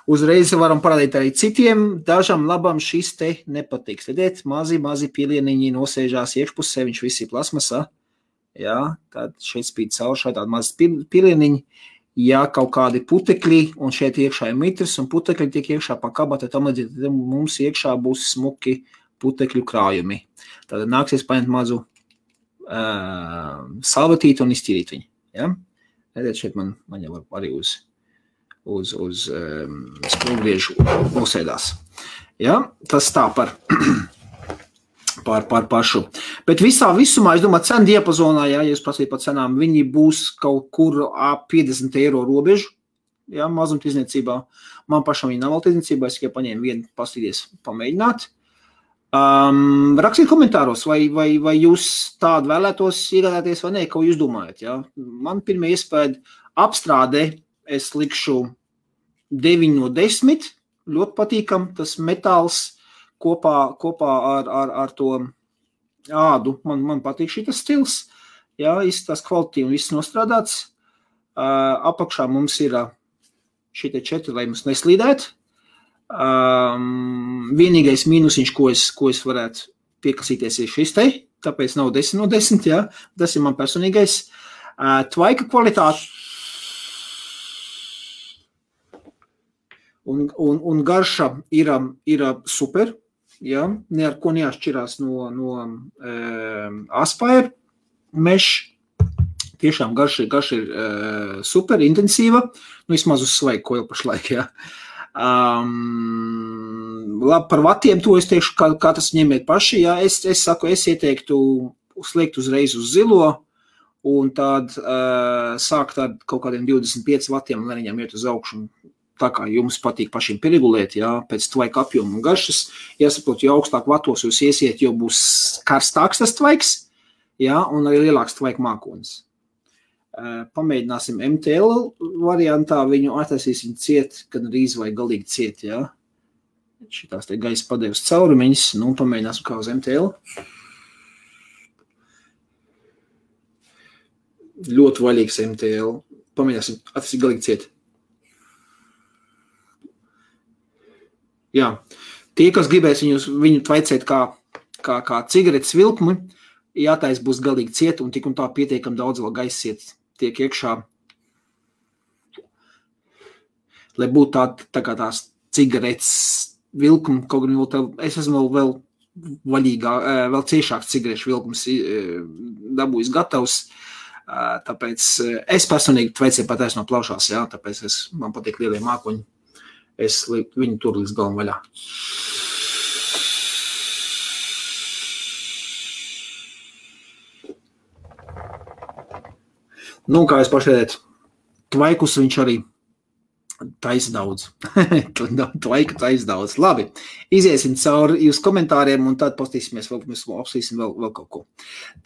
Uzreiz varam parādīt arī citiem, dažam labam šis te nepatiks. Redzēt, mazi pilieniņi nosēžās iekšpusē, viņš visi plasmasā. Tad šeit spīd caur šādi mazi pilieniņi. Kaut kādi putekļi, un šeit iekšā ir mitrs, un putekļi tiek iekšā pa kabata, tam līdzīgi mums iekšā būs smuki putekļu krājumi. Tad nāksies paņemt mazu salvetīti un iztīrīt viņu. Redzēt, šeit man jau arī uz sprūgriežu nosēdās. Tas tā par pašu. Bet visumā, es domāju, cenu diapazonā, ja jūs prasīt par cenām, viņi būs kaut kur ap 50 eiro robežu, mazumtirdzniecībā. Man pašam viņi nav vēl tirdzniecībā, es tikai paņēmu vienu pastīties pamēģināt. Rakstiet komentāros, vai jūs tādu vēlētos iegādāties vai ne, ko jūs domājat. Man pirmie iespēja apstrādē, es likšu 9 no 10, ļoti patīkam, tas metāls kopā ar to ādu. Man patīk šitas stils, izskatās kvalitīvi un viss nostrādāts. Apakšā mums ir šitie 4, lai mums neslīdēt. Vienīgais mīnusiņš, ko es varētu piekasīties, ir šis te, tāpēc nav 10 no 10, tas ir man personīgais. Tvaika kvalitāte un garša ir super, ne ar ko neatšķirās no Aspire mesh. Tiešām garša ir super intensīva, vismaz uz svaigu, ko jau pašlaik, Labi, par vatiem to es teikšu, kā tas ņemiet paši, es saku, es ieteiktu sliekt uzreiz uz zilo, un tad sākt ar kaut kādiem 25 vatiem, lai viņam iet uz augšu. Tā kā jums patīk pašiem pieregulēt, pēc tvaika apjoma un garšas, jāsaprot, jo augstāk vatos jūs iesiet, jo būs karstāks tas tvaiks, un arī lielāks tvaika mākonis. Pamēģināsim MTL variantā, viņu attaisīsim ciet, kad rīz vai galīgi ciet, Šitās te gaisa padevas caurumiņas, pamēģināsim kā uz MTL. Ļoti vaļīgs MTL. Pamēģināsim attaisīt galīgi ciet. Tie, kas gribēs viņu tvaicēt kā cigaretes vilkmi, jātais būs galīgi ciet, un tik un tā pietiekam daudz vēl gaisiet tiek iekšā, lai būtu tā kā tās cigaretes vilkumi, kaut gan es esmu vēl vaļīgā, vēl ciešāks cigarešu vilkums dabūjis gatavs, tāpēc es personīgi tvaicēju pataisno plaušās, tāpēc man patīk lielie mākoņi. Es viņu tur līdz galam vaļā. Kā es pašēdēt, tvaikus viņš arī taisa daudz. Tvaika taisa daudz. Labi, iziesim cauri jūs komentāriem un tad postīsimies vēl, mēs apsīsim vēl kaut ko.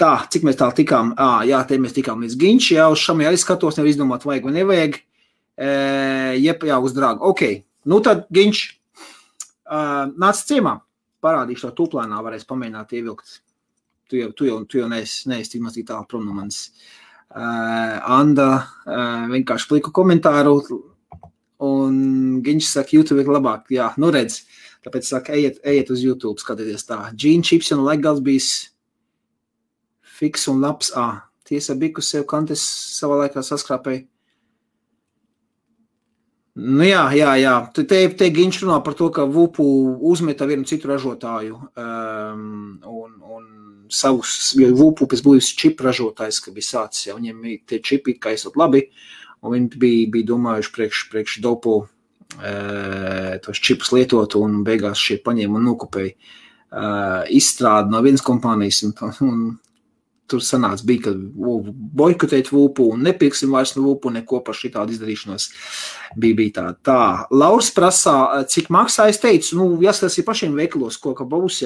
Tā, cik mēs tā tikām? Te mēs tikām līdz Ginči, uz šam arī skatos, nevar izdomāt vajag vai nevajag. Uz drāgu. Ok. Tad, Ginč, nāc ciemā, parādīšu to tūplēnā, varēs pamēģināt ievilkt. Tu jau neesi tik maz tik tālu prom no manis. Anda vienkārši pliku komentāru, un Ginč saka, YouTube ir labāk. Redz, tāpēc saka, ejiet uz YouTube, skatieties tā. Gene chips un legals bijis fiks un labs. Tiesa biku sev kantes savā laikā saskrāpēja. Te Ginč runā par to, ka Vupu uzmeta vienu citu ražotāju un savus, jo Vupu pēc būs čipu ražotājs, ka bija sācis, viņiem tie čipi kaisot labi, un viņi bija domājuši priekš dopu tos čipus lietot, un beigās šie paņēma un nokopēja izstrādi no vienas kompānijas, un tur sanāca bija, ka boikotēt Vupu un nepirksim vairs no Vupu neko par šitādu izdarīšanos. Bija tā. Lauris prasā, cik maksā, es teicu, jāskatās ir pašiem veikalos, ko ka būs,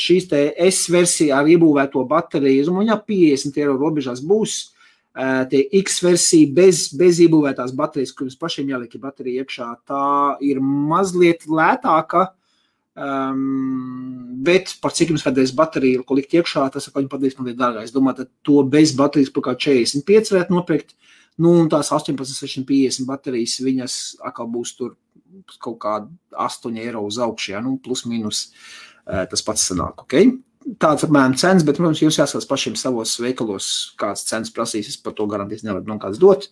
šīs te S-versija ar iebūvēto bateriju, un 50 eiro robežās būs, tie X-versija bez iebūvētās baterijas, kuras pašiem jāliek baterija iekšā, tā ir mazliet lētāka, Bet par cik jums vajadzēs bateriju, ko likt iekšā, tas viņi padarīs man dārgāk. Es domāju, tad to bez baterijas par kā 45 varētu nopirkt, un tās 18,650 baterijas, viņas atkal būs tur kaut kā 8 eiro uz augšu, plus mīnus tas pats sanāk, ok? Tāds apmēram cenas, bet, protams, jūs jāskatās pašiem savos veikalos, kāds cenas prasīs, es par to garantīs nevaru man kāds dot.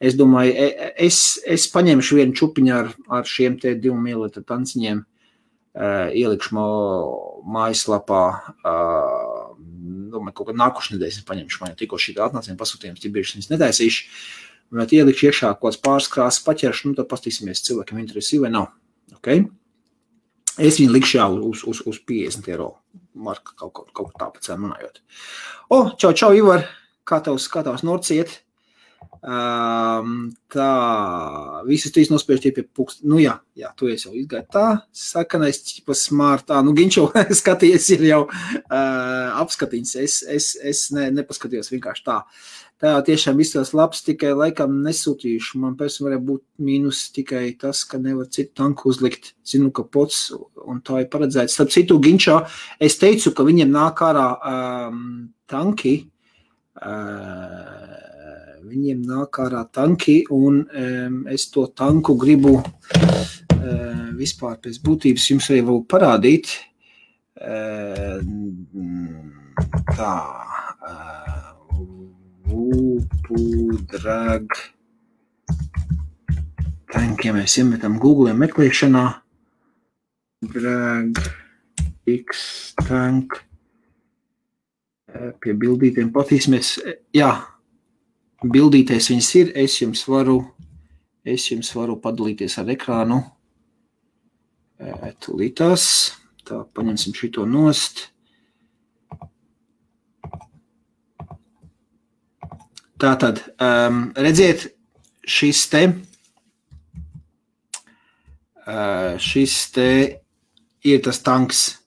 Es domāju, es paņemšu vienu čupiņu ar šiem te 2 ml tanciņiem, ielikšu mājaslapā, domāju, kaut kā nākošu nedēļas es paņemšu, man jau tikko šī atnācījuma pasūtījums, ķibieši viņas netaisīšu, bet ielikšu iekšā kaut kāds pāris krāsas paķeršu, tad pastīsimies cilvēkiem interesī vai nav, ok? Es viņu likšu jau uz 50 eiro marka kaut tā pēc runājot. Čau, Ivar, kā tavs norciet? Tā, visus trīs nospiež tie pie pukst. Jā, tu esi jau izgāji tā, sakanais ķipa smārtā. Ginčo skaties ir jau apskatiņas. Es nepaskatījos vienkārši tā. Tā tiešām visos labs, tikai laikam nesūtījuši. Man personīgi varētu būt mīnus tikai tas, ka nevar citu tanku uzlikt. Zinu, ka pots un tā ir paredzēts. Starp citu, Ginčā, es teicu, ka viņiem nāk ārā tanki. Viņiem nāk ārā tanki, un es to tanku gribu vispār pēc būtības jums arī vēl parādīt. Tā, Drag tank, ja mēs iemetam Google meklēšanā, Drag X tank, pie bildītiem patīsimies, bildīties viņas ir, es jums varu padalīties ar ekrānu, tūlītās, tā paņemsim šito nost. Tātad, redziet, šis te ir tas tanks,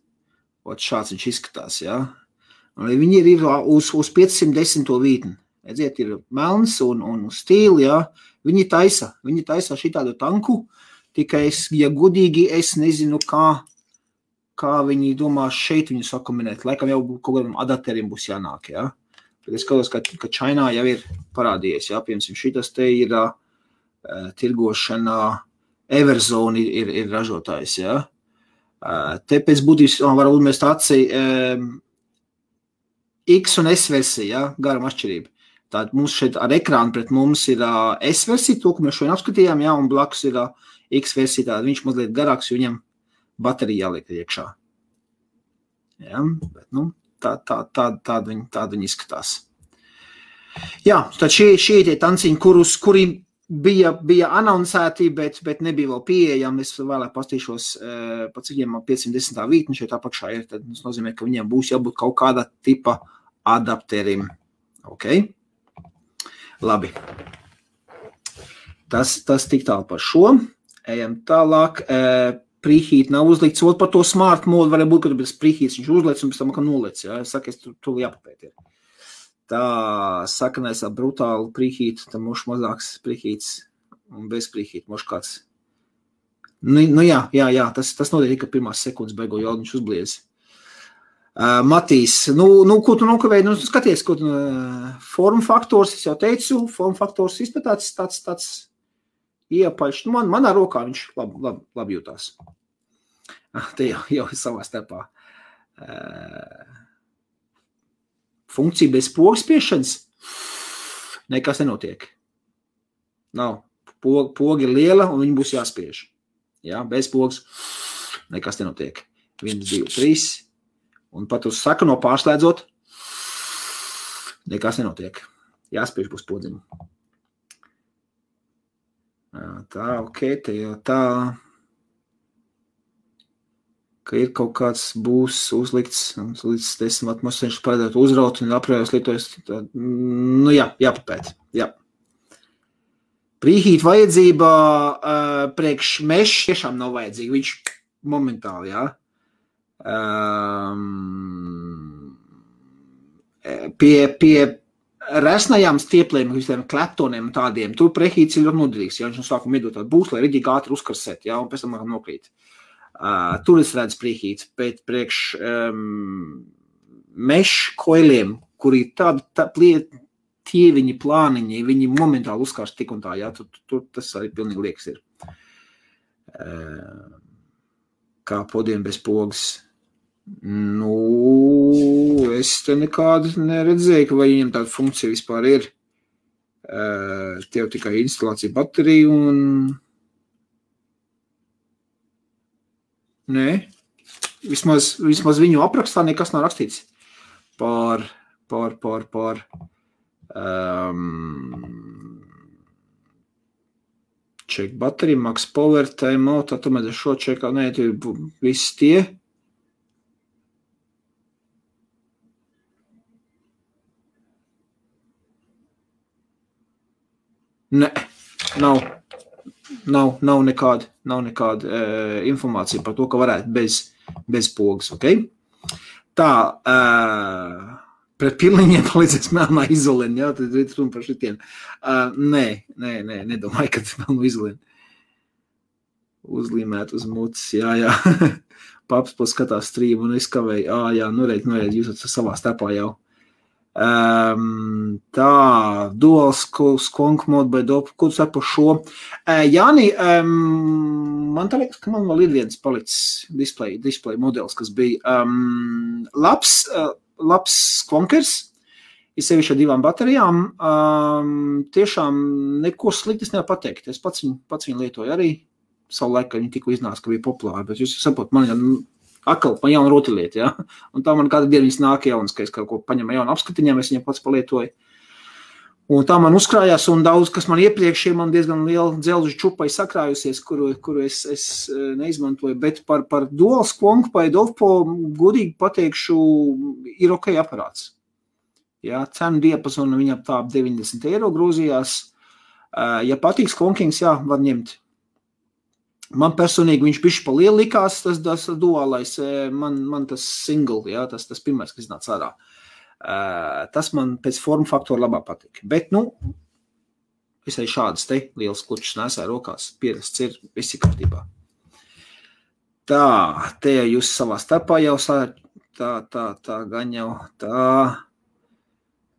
šāds viņš izskatās, Un viņi ir uz 510. vītni, redziet, ir melns un stīli, viņi taisa šitādu tanku, tikai ja godīgi, es nezinu, kā viņi domā šeit viņu sakombinēt, laikam jau kaut kādam adapteriem būs jānāk, Tad es skatos, ka Čainā jau ir parādījies, piemēram, šitas te ir tirgošanā, Everzone ir ražotājs, Te pēc būtības var uzmest aci X un S versija, garam atšķirība. Tātad mums šeit ar ekrānu pret mums ir S versija, to, ko mēs šodien apskatījām, un blakus ir X versija, tātad viņš mazliet garāks, jo viņam baterija jāliek iekšā. Bet, tāda viņi izskatās. Tad šie tie tanciņi, kuri bija anoncēti, bet nebija vēl pieejami. Es vēlāk pastīšos, pa cik viņiem 510. vītni šeit apakšā ir, tad tas nozīmē, ka viņiem būs jābūt kaut kāda tipa adapterim. Ok? Labi. Tas tik tālu par šo. Ejam tālāk. Preheat nav uzlikts, par to smart mode varētu būt, ka tas preheats viņš uzliec un pēc tam, ka nolec, Es saku, es tur jāpapēt ir. Tā sakanais brutāli preheat, tam moš mazāks preheats un bez preheat, moš kāds. Jā, tas notiek, ka pirmās sekundes beigo jau viņš uzbliez. Matīs, ko tu nokavēji? Skaties, ko tu form faktors, es jau teicu, form faktors izpētāts tāds iepaļš. Manā rokā viņš labi jūtās. Te jau savā starpā. Funkcija bez pogas spiešanas nekas nenotiek. Nav. Poga ir liela un viņa būs jāspiež. Bez pogas nekas nenotiek. 1, 2, 3. Un pat uz sakano pārslēdzot nekas nenotiek. Jāspiež būs podziņu. Tā, ok, te jau tā, ka ir kaut kāds būs uzlikts līdz 10 atmosfēras parādāt uzraut un aprējos lietojas. Jāpapēt. Preheat vajadzība priekš mesh tiešām nav vajadzīga. Viņš momentāli, Pie resnajām stieplēm, visiem kleptoniem un tādiem, tur preheats ir ļoti noderīgs, viņš no sākuma iedot tādu būs, lai rigīgi ātri uzkarsēt, un pēc tam nokrīt. Tur es redzu priekīts, bet priekš mešu koiliem, kuri tie viņi plāniņi, viņi momentāli uzkārst tik un tā, jā, tur tas arī pilnīgi liekas ir. Kā podiem bez pogas. Nu, es te nekādu neredzēju, ka vai viņam tāda funkcija vispār ir. Tev tikai instalācija baterija un... Nē, vismaz viņu aprakstā nekas nav rakstīts par check battery, max power, time out, tomēr šo čekā, nē, tie visi tie. Nē, nav nekāda informācija par to, ka varētu bez pogas, ok? Tā, pret pilniņiem palīdzēs melnā izolēna, jā, tad runa par šitiem. Nē, nedomāju, ka melnu izolēna. Uzlīmēt uz mutis, jā. Paps skatās streamu un es kavēju, jā, noreid, jūs esat savā starpā jau. Tā, dual skunk mode by dope, ko tu saki par šo? Jāni, man tā liekas, ka man vēl ir viens palicis display modelis, kas bija labs skunkers, ir sevišķi ar 2 baterijām, tiešām neko sliktas nevar pateikt. Es pats viņu lietoju arī, savu laiku, kad viņi tikko iznāca, ka bija populāri, bet jūs saprot, man jauna rotaļlieta, ja? Un tā man kādu dienu viņas nāk jaunas, ka es kaut ko paņemu jaunu apskatiņām, es viņam pats palietoju. Un tā man uzkrājās, un daudz, kas man iepriekš ir, man diezgan liela dzelžu čupai sakrājusies, kuru es neizmantoju, bet par dual skunk vai Dovpo godīgi pateikšu, ir ok aparāts. Ja, cenu diapazonu viņam tā 90 eiro grūzījās. Ja patīk skunkings, jā, var ņemt. Man personīgi viņš bišķi pa lielu likās, tas duālais, man tas single, jā, tas pirmais, kas nāc ārā. Tas man pēc formu faktora labāk patīk. Bet, es arī šādas te lielas klučas nesāju rokās, pierasts ir, viss ir kārtībā. Tā, te jūs savā starpā jau tā gan jau tā,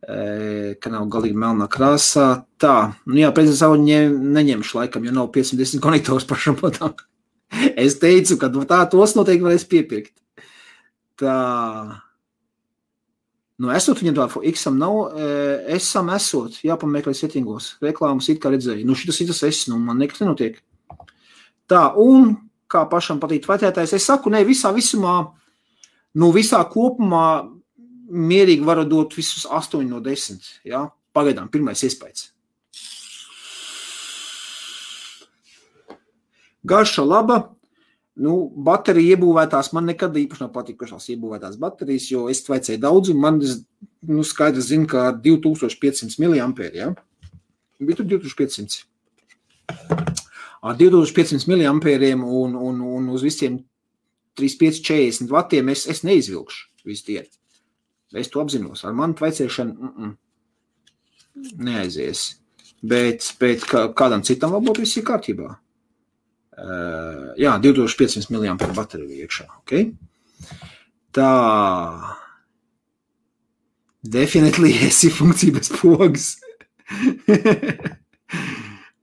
ka nav galīgi melnā krāsā. Tā, jā, prezidents savu neņemšu laikam, jo nav 510 konektors pašam patām. Es teicu, ka tā tos noteikti varēs piepirkt. Tā, esot viņam tā, X-am nav, S-am esot, jāpameklē settingos, reklāmas it kā redzēju. Šitas S, man nekas nenotiek. Tā, un kā pašam patīk vērtētājs, es saku, ne, visā kopumā mierīgi varu dot visus 8 no 10, jā, pagaidām, pirmais iespējas. Garša laba, baterija iebūvētās, man nekad īpaši nav patikušās iebūvētās baterijas, jo es vajadzēju daudz, un man, skaidrs zinu, ka 2500 mAh, jā, bija tur 2500. Ar 2500 mAh un uz visiem 35-40 vatiem es neizvilkšu visu dienu. Es to apzinos. Ar manu tvaicēšanu neaizies. Bet kādam citam vēl būtu viss ir kārtībā. Jā, 2500 mAh bateriju iekšā. Okay? Tā. Definitely esi funkcija bez pogas.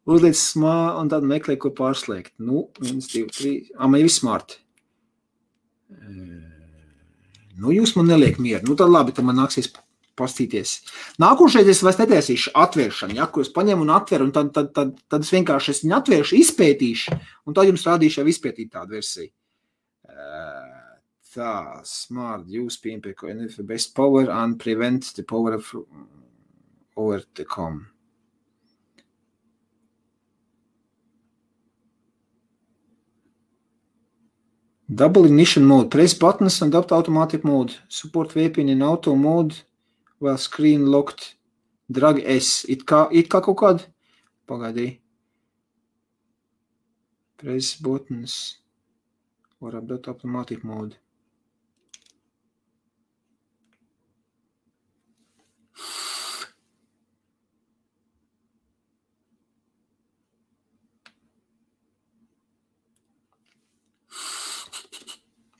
Uzliec un tad meklē, ko pārslēgt. 1, 2, 3. Man ir viss smart. Jūs man neliek mieru. Tad labi, tad man nāksies pastīties. Nākošais es vairs netaisīšu atvēršanu, ja, kur es paņemu un atveru, un tad es vienkārši viņu atvēršu, izpētīšu, un tad jums rādīšu jau izpētīt tādu versiju. Tā, smart, use PMP best power and prevent the power of over the com. Double ignition mode. Press buttons and adopt automatic mode. Support VPN in auto mode while screen locked. Drag S. It kā kaut kāda? Pagaidī. Press buttons or adopt automatic mode.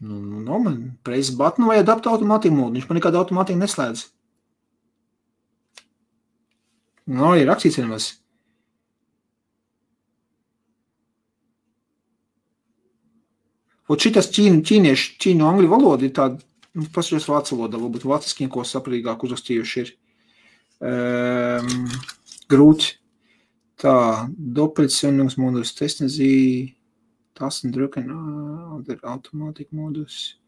Nu, man press button vai adapt automatic mode. Viņš man nekādu automātiku neslēdz. Nu, arī rakstīts vienmēr. Un šitas ķīņu angļu valoda ir tāda, pasaļos vācu valodā, varbūt vāciskiem, ko saprīgāk uzrakstījuši ir grūti. Tā, Doppelzündungsmodus, testen Sie Tasten drücken, der Automatikmodus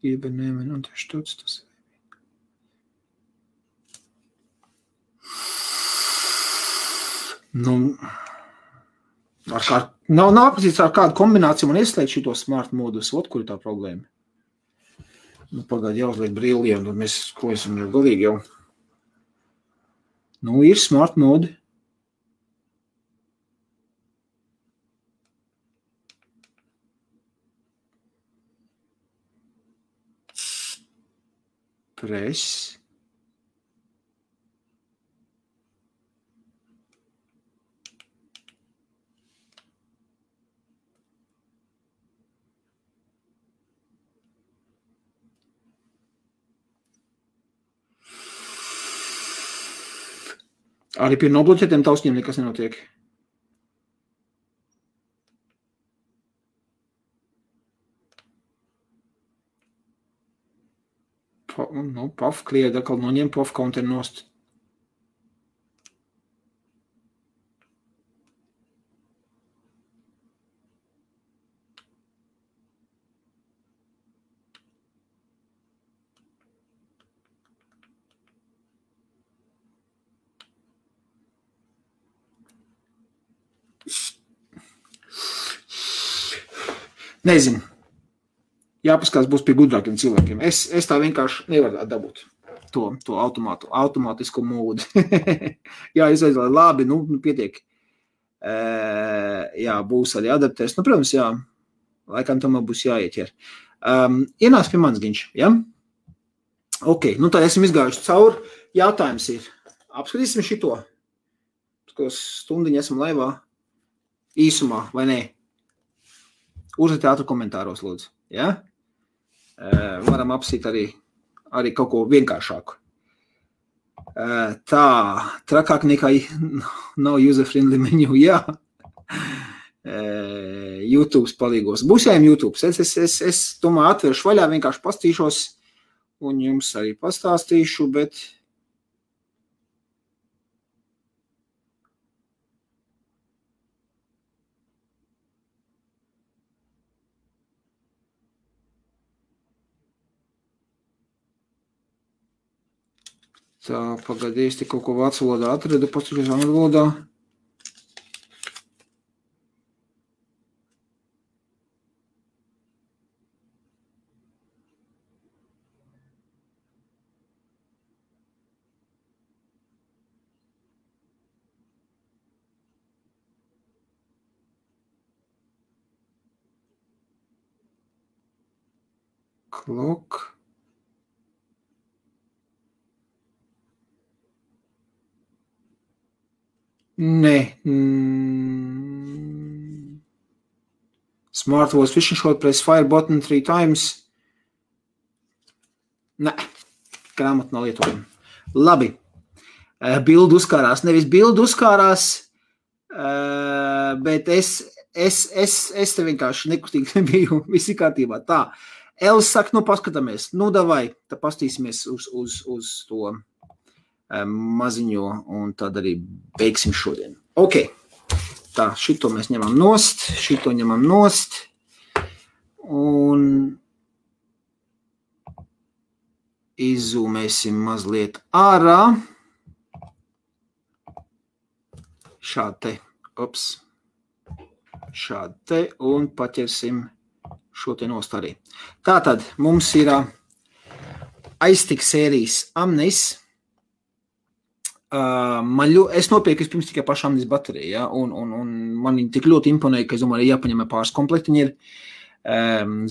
übernehmen, unterstützt das. Nu, nav aprakstīts ar kādu kombināciju man ieslēgt šito smart modus, kur ir tā problēma. Nu, pagādi jāuzliek brīliem, tad mēs, ko esam jau galīgi jau. Nu, ir smart modi. Press. Arī pie nobloķētiem tausņiem nekas nenotiek. Nu, PAF klieda, atkal noņem PAF counter nost. Nezinu. Jāpaskās būs pie gudrākiem cilvēkiem. Es tā vienkārši nevaru dabūt to automātisko modu. Jā, izveidoju labi, nu pietiek. Jā, būs arī adaptēs. Nu, protams, jā, laikam tomēr būs jāieķer. Ienāc pie manis, Giņš, ja? Ok, nu tā esam izgājuši cauri. Jautājums ir, apskatīsim šito. Stundiņu esam laivā īsumā, vai ne? Uzliet ātru komentāros, lūdzu. Ja? Varam apsīt arī kaut ko vienkāršāku. Tā, trakāk nekā nav user-friendly menu, jā. YouTube palīgos. Būs jājiem YouTube. Es tomēr atveršu vaļā, vienkārši pastīšos un jums arī pastāstīšu, bet tā, pagaidīs, te kaut ko vācu valodā atradu, pastīšos angļu valodā. Clock. Nē. Smart voice fishing shot, press fire button 3 times. Nē, grāmatu nav lietojama. Labi. Bildu uzkārās. Nevis bildu uzkārās, bet es te vienkārši nekustīgi nebiju visi kārtībā. Tā. Els saka, nu paskatāmies. Nu, davai, tā pastīsimies uz to maziņo, un tad arī beigsim šodien. Ok, tā, šito mēs ņemam nost, šito ņemam nost, un izzūmēsim mazliet ārā. Šādi te, un paķersim šo te nost arī. Tātad mums ir aiztik sērijas Amnis. Es nopirku pirms tikai pašu Amnis bateriju, ja? un man viņi tik ļoti imponēja, ka es domāju, jāpaņem pāris komplektiņi ir.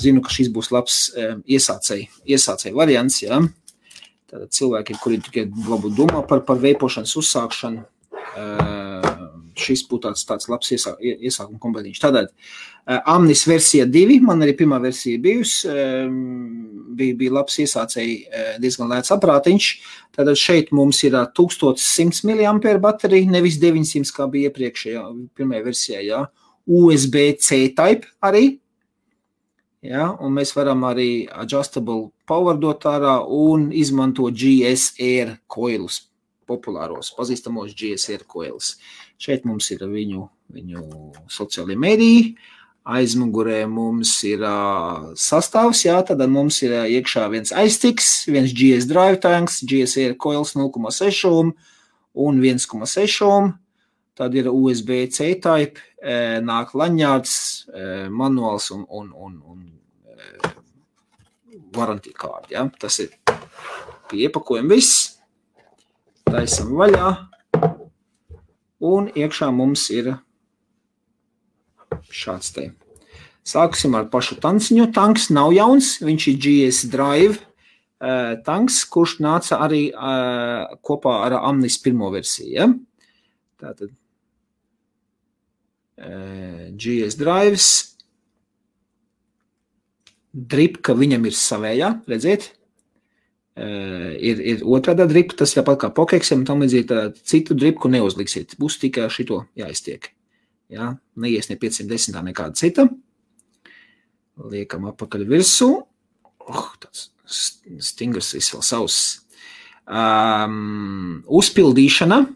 Zinu, ka šis būs labs iesācēji variants, ja? Tātad cilvēki, kuri tikai varbūt domā par veipošanas uzsākšanu, šis būtu tāds labs iesākuma kompletīņš. Tātad, Amnis versija 2, man arī pirmā versija bijusi, bija labs iesācēji, diezgan lēts aprātiņš. Tātad šeit mums ir 1100 mAh baterija, nevis 900, kā bija iepriekšējā, pirmajā versijā, jā. USB-C type arī, jā, un mēs varam arī adjustable power dot ārā un izmantot GSR coilus, populāros, pazīstamos GSR coilus. Šeit mums ir viņu sociālie mediji, aizmugurē mums ir sastāvs, jā, tad mums ir iekšā viens iSticks, viens GS drive tanks, GSR coils 0,6 un 1,6, tad ir USB-C type, nāk laņārds, manuāls un warranty card, ja? Tas ir pie iepakojuma viss, taisam vaļā, un iekšā mums ir šāds te. Sāksim ar pašu tanciņu. Tanks nav jauns, viņš ir GS Drive tanks, kurš nāca arī kopā ar Amnis pirmo versiju, ja? Tātad GS Drives, dripka viņam ir savējā, redziet, ir otrādā dripka, tas ir pat kā pokeksiem, tam līdzīgi citu dripku neuzliksiet, būs tikai šito jāiztiek, ja? Neies ne 510, nekāda cita, liekam apakaļ virsū, tāds stingrs viss vēl savs, uzpildīšana,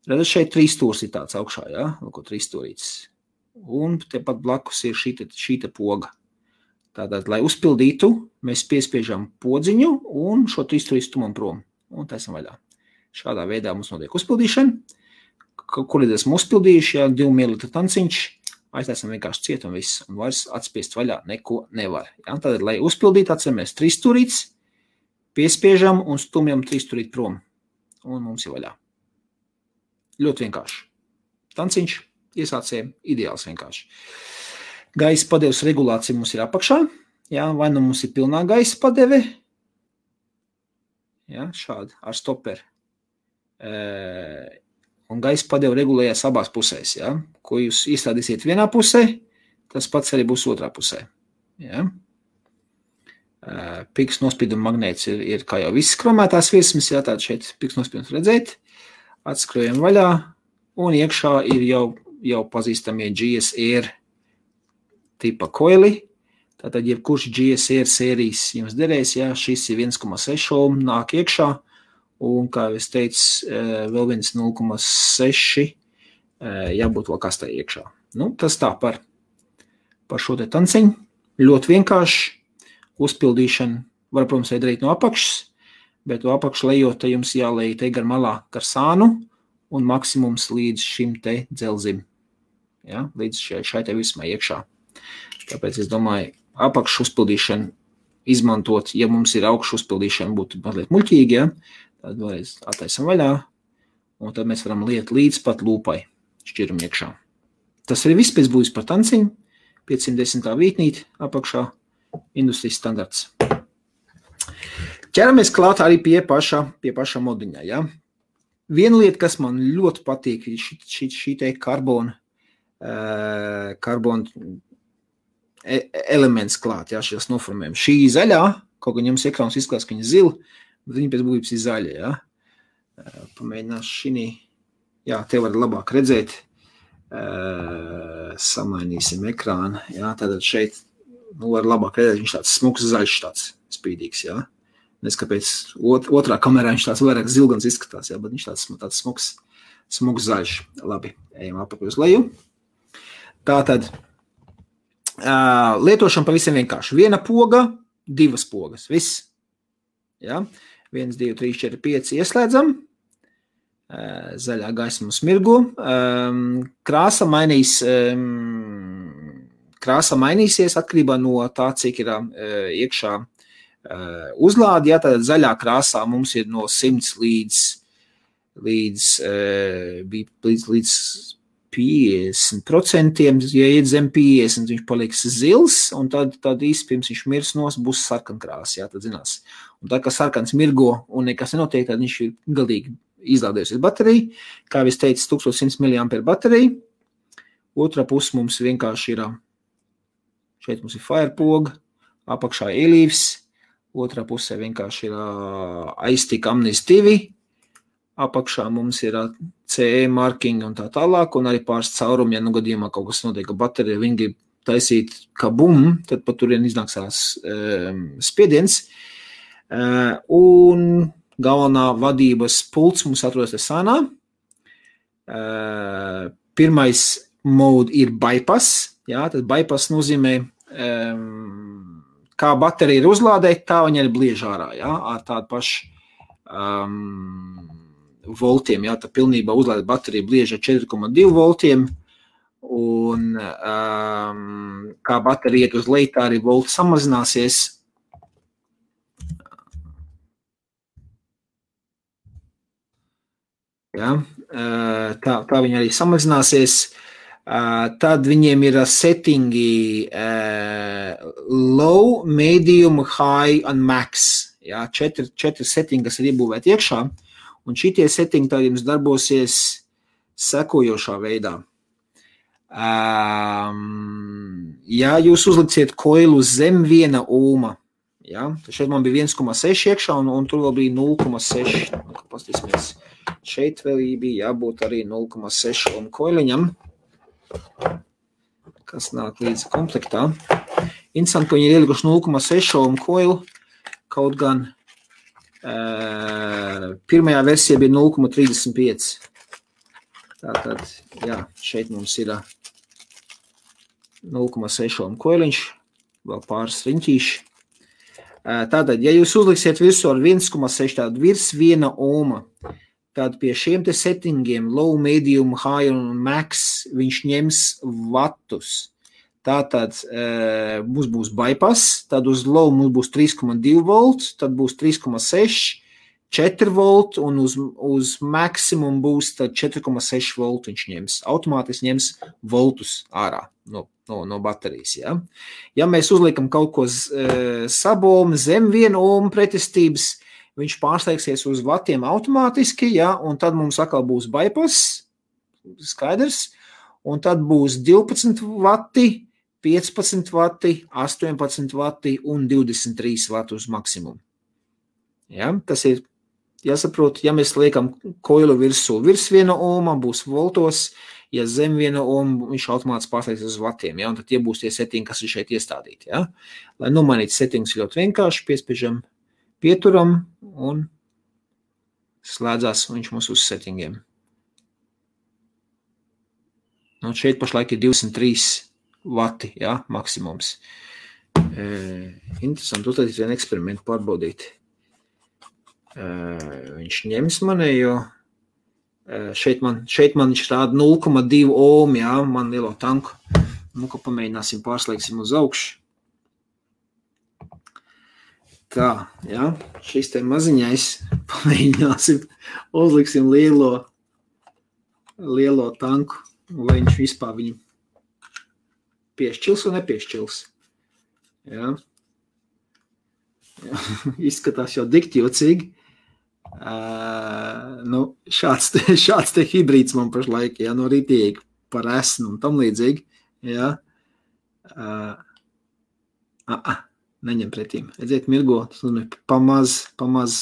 redzat, šeit 3 stūrs ir tāds augšā, ja? Lūko 3 stūrītis. Un tepat blakus ir šīta poga. Tātad, lai uzpildītu, mēs piespiežam podziņu un šo 3 stūrīt stumam prom. Un taisam vaļā. Šādā veidā mums notiek uzpildīšana. Kur ir esam uzpildījuši, ja 2 ml tanciņš, aiztaisam vienkārši ciet un viss. Un vairs atspiest vaļā neko nevar. Ja? Tātad, lai uzpildītu, atceramies 3 stūrītis, piespiežam un stumjam 3 stūrīt prom. Un mums ir vaļā. Ļoti vienkārši. Tanciņš iesācējiem ideāls vienkārši. Gaisa padeves regulācija mums ir apakšā. Jā, vai nu mums ir pilnā gaisa padeve. Jā, šādi ar stoperi. Un gaisa padeve regulējas abās pusēs. Jā. Ko jūs iestrādīsiet vienā pusē, tas pats arī būs otrā pusē. Jā. Piks nospīduma magnēts ir kā jau viss kromētās virsmas. Jā, tātad šeit piks nospīdums redzēt. Atskrojam vaļā, un iekšā ir jau pazīstamie GSR tipa koili. Tātad, jebkurš GSR sērijas jums derēs, jā, šis ir 1,6 ohm, nāk iekšā, un, kā es teicu, vēl viens 0,6 jābūt vēl kastē iekšā. Nu, tas tā par šo te tanciņu. Ļoti vienkārši uzpildīšana var, protams, darīt no apakšas, bet to apakšu lejot, te jums jālej te gar malā gar sānu un maksimums līdz šim te dzelzim. Ja? Līdz šai te vismai iekšā. Tāpēc es domāju, apakšu uzpildīšanu izmantot, ja mums ir augšu uzpildīšana, būtu mazliet muļķīgi, ja? Tad vēlreiz attaisam vaļā, un tad mēs varam liet līdz pat lūpai šķirumu iekšā. Tas arī viss pēc būs par tanciņu, 510. vītnīt apakšā, industrijas standarts. Ķeramies klāt arī pie paša modiņā, ja? Viena lieta, kas man ļoti patīk, šī te karbona elements klāt, ja, šīs noformējumi. Šī zaļā, kaut gan jums ekrāns izskatās, ka viņa zila, bet viņa pēc būtības ir zaļa, ja? Pamēģinās šī, jā, te var labāk redzēt, samainīsim ekrānu, ja? Tātad šeit, var labāk redzēt, viņš tāds smuks zaļš, tāds spīdīgs, ja? Neskapēc otrā kamerā viņš tāds vairāk zilgans izskatās, jā, bet viņš tāds smuks zaļš. Labi, ejam apakaļ uz leju. Tātad, lietošana pavisam vienkārši. Viena poga, 2 pogas, viss. Jā, 1, 2, 3, 4, 5 ieslēdzam. Zaļā gaisma smirgo. Krāsa mainīsies atkarībā no tā, cik ir iekšā uzlādi, ja tātad zaļā krāsā mums ir no 100 līdz 50%, ja iet zem 50, viņš paliks zils, un tad īsti pirms viņš mirs būs sarkankrāsa, jā, tad zinās. Un tā, ka sarkans mirgo un nekas nenotiek, tad viņš ir galīgi izlādējusies baterija. Kā es teicu, 1100 mAh baterija. Otrā puse mums vienkārši ir, šeit mums ir Firepoga, apakšā Elīvs, otrā pusē vienkārši ir iStick Omnis 2, apakšā mums ir CE marking un tā tālāk, un arī pāris caurumi, ja gadījumā kaut kas notiek, ka baterija viņi grib taisīt kā bum, tad pat turien iznāksās spiediens. Un galvenā vadības pults mums atrodas Sanā. Pirmais mode ir bypass, jā, tad bypass nozīmē, kā baterija ir uzlādēta, tā viņa ir bliež ārā, jā, ar tādu pašu voltiem, jā, tā pilnībā uzlādēta baterija bliež ar 4,2 voltiem, un kā baterija iet uz leju, tā arī volti samazināsies. Ja, tā viņa arī samazināsies. Tad viņiem ir settingi low, medium, high un max. Ja, četri settingi, kas ir iebūvēti iekšā. Un šitie settingi tad jums darbosies sekojošā veidā. Ja jūs uzliksiet koilu zem 1 ohma, ja, tad šeit man bija 1,6 iekšā un tur vēl bija 0,6. Pastīsimies. Šeit vēl bija jābūt arī 0,6 ohmu koiliņam, kas nāk līdz komplektā. Interesanti, ka viņi ir ielikuši 0,6 ohmu koilu, kaut gan pirmajā versijā bija 0,35. Tātad, jā, šeit mums ir 0,6 ohmu koiliņš, vēl pāris riņķīši. Tātad, ja jūs uzliksiet visu ar 1,6, tātad virs 1 ohma, tad pie šiem te settingiem, low, medium, high un max, viņš ņems vatus. Tātad mums būs bypass, tad uz low mums būs 3,2 volt, tad būs 3,6, 4 volt un uz maksimum būs tad 4,6 volt viņš ņems. Automātiski ņems voltus ārā no baterijas. Ja? Ja mēs uzliekam kaut ko sabomu zem 1 ohmu pretestības, viņš pārsteigsies uz vatiem automātiski, ja, un tad mums atkal būs bypass, skaidrs, un tad būs 12 vati, 15 vati, 18 vati un 23 vati uz maksimumu. Ja, tas ir jāsaprot, ja mēs liekam koilu virsū virs 1 ohma, būs voltos, ja zem 1 ohma, viņš automātiski pārsteigsies uz vatiem, ja, un tad tie būs tie settingi, kas ir šeit iestādīti. Ja. Lai nomainīt settingus ļoti vienkārši, piespiežam pieturam un slēdzās viņš mums uz settingiem. Un šeit pašlaik ir 203 vati, ja, maksimums. Interesanti, uztaisīt vienu eksperimentu pārbaudīt. Viņš ņems manējo, šeit man viņš rāda 0,2 ohmu, ja, man lielo tanku. Nu, ko pamēģināsim, pārslēgsim uz augšu. Tā, ja, šis te maziņais, pamēģināsim, uzliksim lielo tanku, vai viņš vispār viņu piešķils un nepiešķils. Ja. Ja, izskatās jau dikķjocīgi. Nu, šāds te hibrīds man pašlaik, ja, no rītīgi par esnu un tam līdzīgi. Ja. Neņem pretīm. Redziet, mirgo, pamaz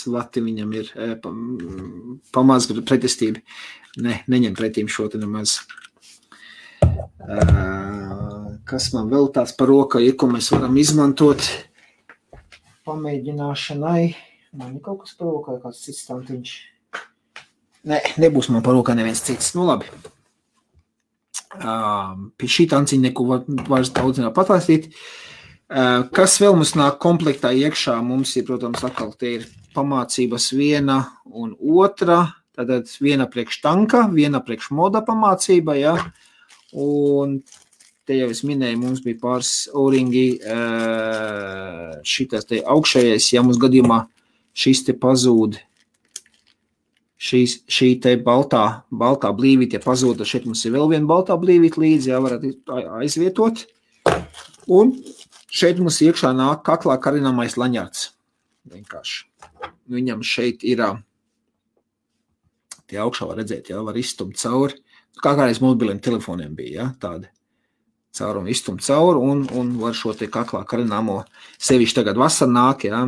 vati viņam ir, pamaz pretestība. Neņem pretīm šo te nemaz. Kas man vēl tāds par roka ir, ko mēs varam izmantot pamēģināšanai? Man ir kaut kas par roka, kāds cits tantiņš. Nebūs man par roka neviens cits. Nu labi. Pie šī tanciņa neko vairs daudz nav patāstīt. Kas vēl mums nāk komplektā iekšā? Mums ir, protams, atkal te ir pamācības 1 un 2, tātad 1 priekš tanka, 1 priekš moda pamācība, ja? Un te jau es minēju, mums bija pāris O-ringi, šitas te augšējais, ja mums gadījumā šis te pazūd, šī te baltā blīvīte pazūd, šeit mums ir vēl viena baltā blīvīte līdzi, ja varat aizvietot. Un šeit mums iekšā nāk kaklā karināmais laņārds. Vienkārši. Viņam šeit ir tie augšā var redzēt, jā, var izstumt cauri. Kā kādreiz mobiliem telefoniem bija, jā, tādi caurumi izstumt cauri un var šo te kaklā karināmo sevišķi tagad vasar nāk, jā,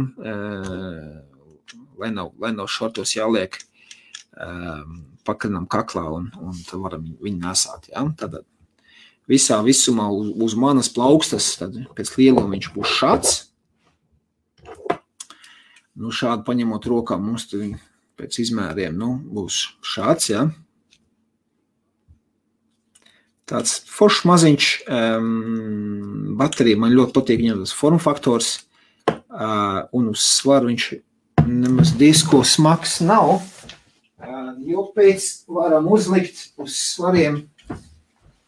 lai nav šortos jāliek pakarinām kaklā un tad varam viņu nesāt, jā. Tātad visā visumā uz manas plaukstas, tad pēc lieluma viņš būs šāds. Nu, šādi paņemot rokā mums tad pēc izmēriem, nu, būs šāds, jā. Tāds foršs maziņš baterija, man ļoti patīk viņam tas formfaktors, un uz svaru viņš nemaz disko smags nav, jo pēc varam uzlikt uz svariem,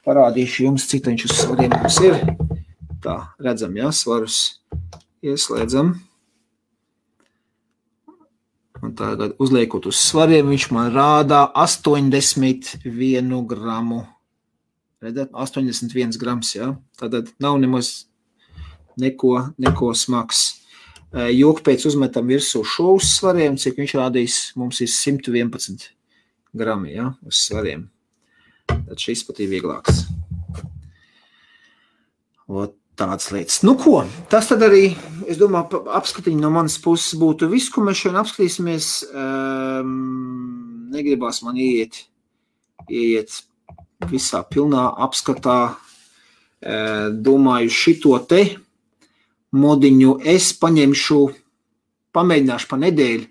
parādīšu jums, cik viņš uz svariem mums ir. Tā, redzam, jā, svarus ieslēdzam. Un tagad uzliekot uz svariem, viņš man rādā 81 gramu. Redzat, 81 grams, jā. Tātad nav nemaz neko smags. Joku pēc uzmetam virsū šo uz svariem, cik viņš rādīs, mums ir 111 grami, jā, uz svariem. Tad šis pat ir vieglāks. Ot tāds lietas. Nu ko, tas tad arī, es domāju, apskatiņi no manas puses būtu viss, ko mēs šodien apskatīsimies. Negribās man ieiet visā pilnā apskatā. Domāju, šito te modiņu es pamēģināšu pa nedēļu,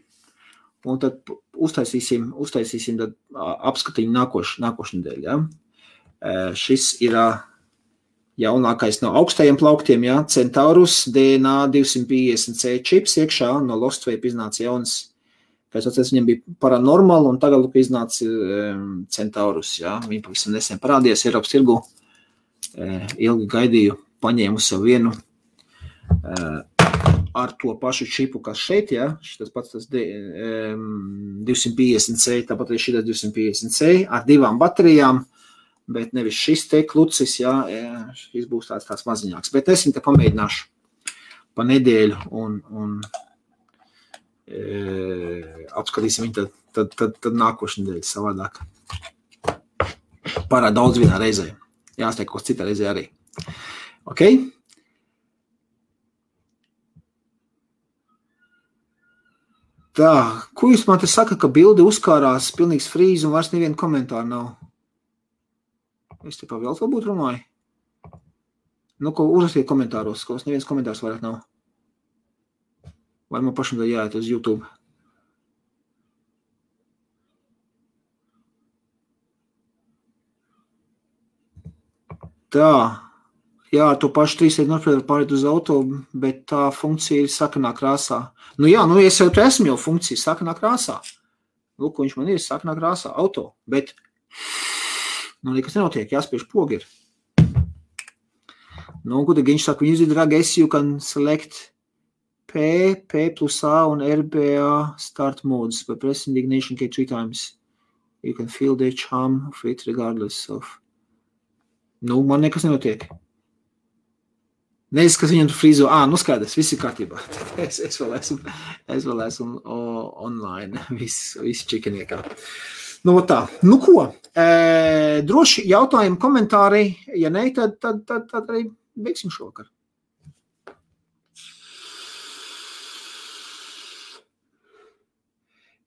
un tad uztaisīsim tad apskatiņu nākošu nedēļu, jā. Šis ir jaunākais no augstajiem plauktiem, jā, Centaurus DNA 250C čips iekšā, no Lostvape iznāca jauns, pēc otrais viņam bija Paranormal, un tagad iznāca Centaurus, jā, viņi pavisam nesen parādījās Eiropas tirgu, ilgi gaidīju, paņēmu savu vienu, ar to pašu čipu, kas šeit, jā, šitas pats tas 250C, tāpat arī šitas 250C, ar 2 baterijām, bet nevis šis te klucis, jā, šis būs tāds maziņāks, bet es viņu te pamēģināšu pa nedēļu un apskatīsim viņu tad nākošu nedēļu savādāk. Pārāk daudz vienā reizē, jāsliek kaut citā reizē arī. Ok? Tā, ko jūs man te saka, ka bildi uzkārās pilnīgs frīz un vairs nevienu komentāru nav? Es te pa vēl to būtu runāju. Nu, ko uzrakstiet komentāros, ko neviens komentārs vairāk nav. Vai man pašam tā jāiet uz YouTube? Tā, jā, to pašu 3 nopriedu pārēt uz auto, bet tā funkcija ir sarkanā krāsā. Nu jā, nu es jau esmu jau funkcija sarkanā krāsā. Lūk, viņš man ir sarkanā krāsā, auto, bet nu, nekas nenotiek, jāspiež pogi ir. Nu, ko tad viņš saka, when you drag S, you can select P plus A un RBA start modes by pressing the ignition key 3 times. You can feel the charm of it regardless of. Nu, man nekas nenotiek. Nezinu, kas viņam tu frīzo. Nu skaidrs, viss ir kārtībā. Es vēl esmu online, viss čikiniekā. Nu, tā. Nu, ko? Droši jautājumi, komentāri. Ja ne, tad arī beigsim šovakar.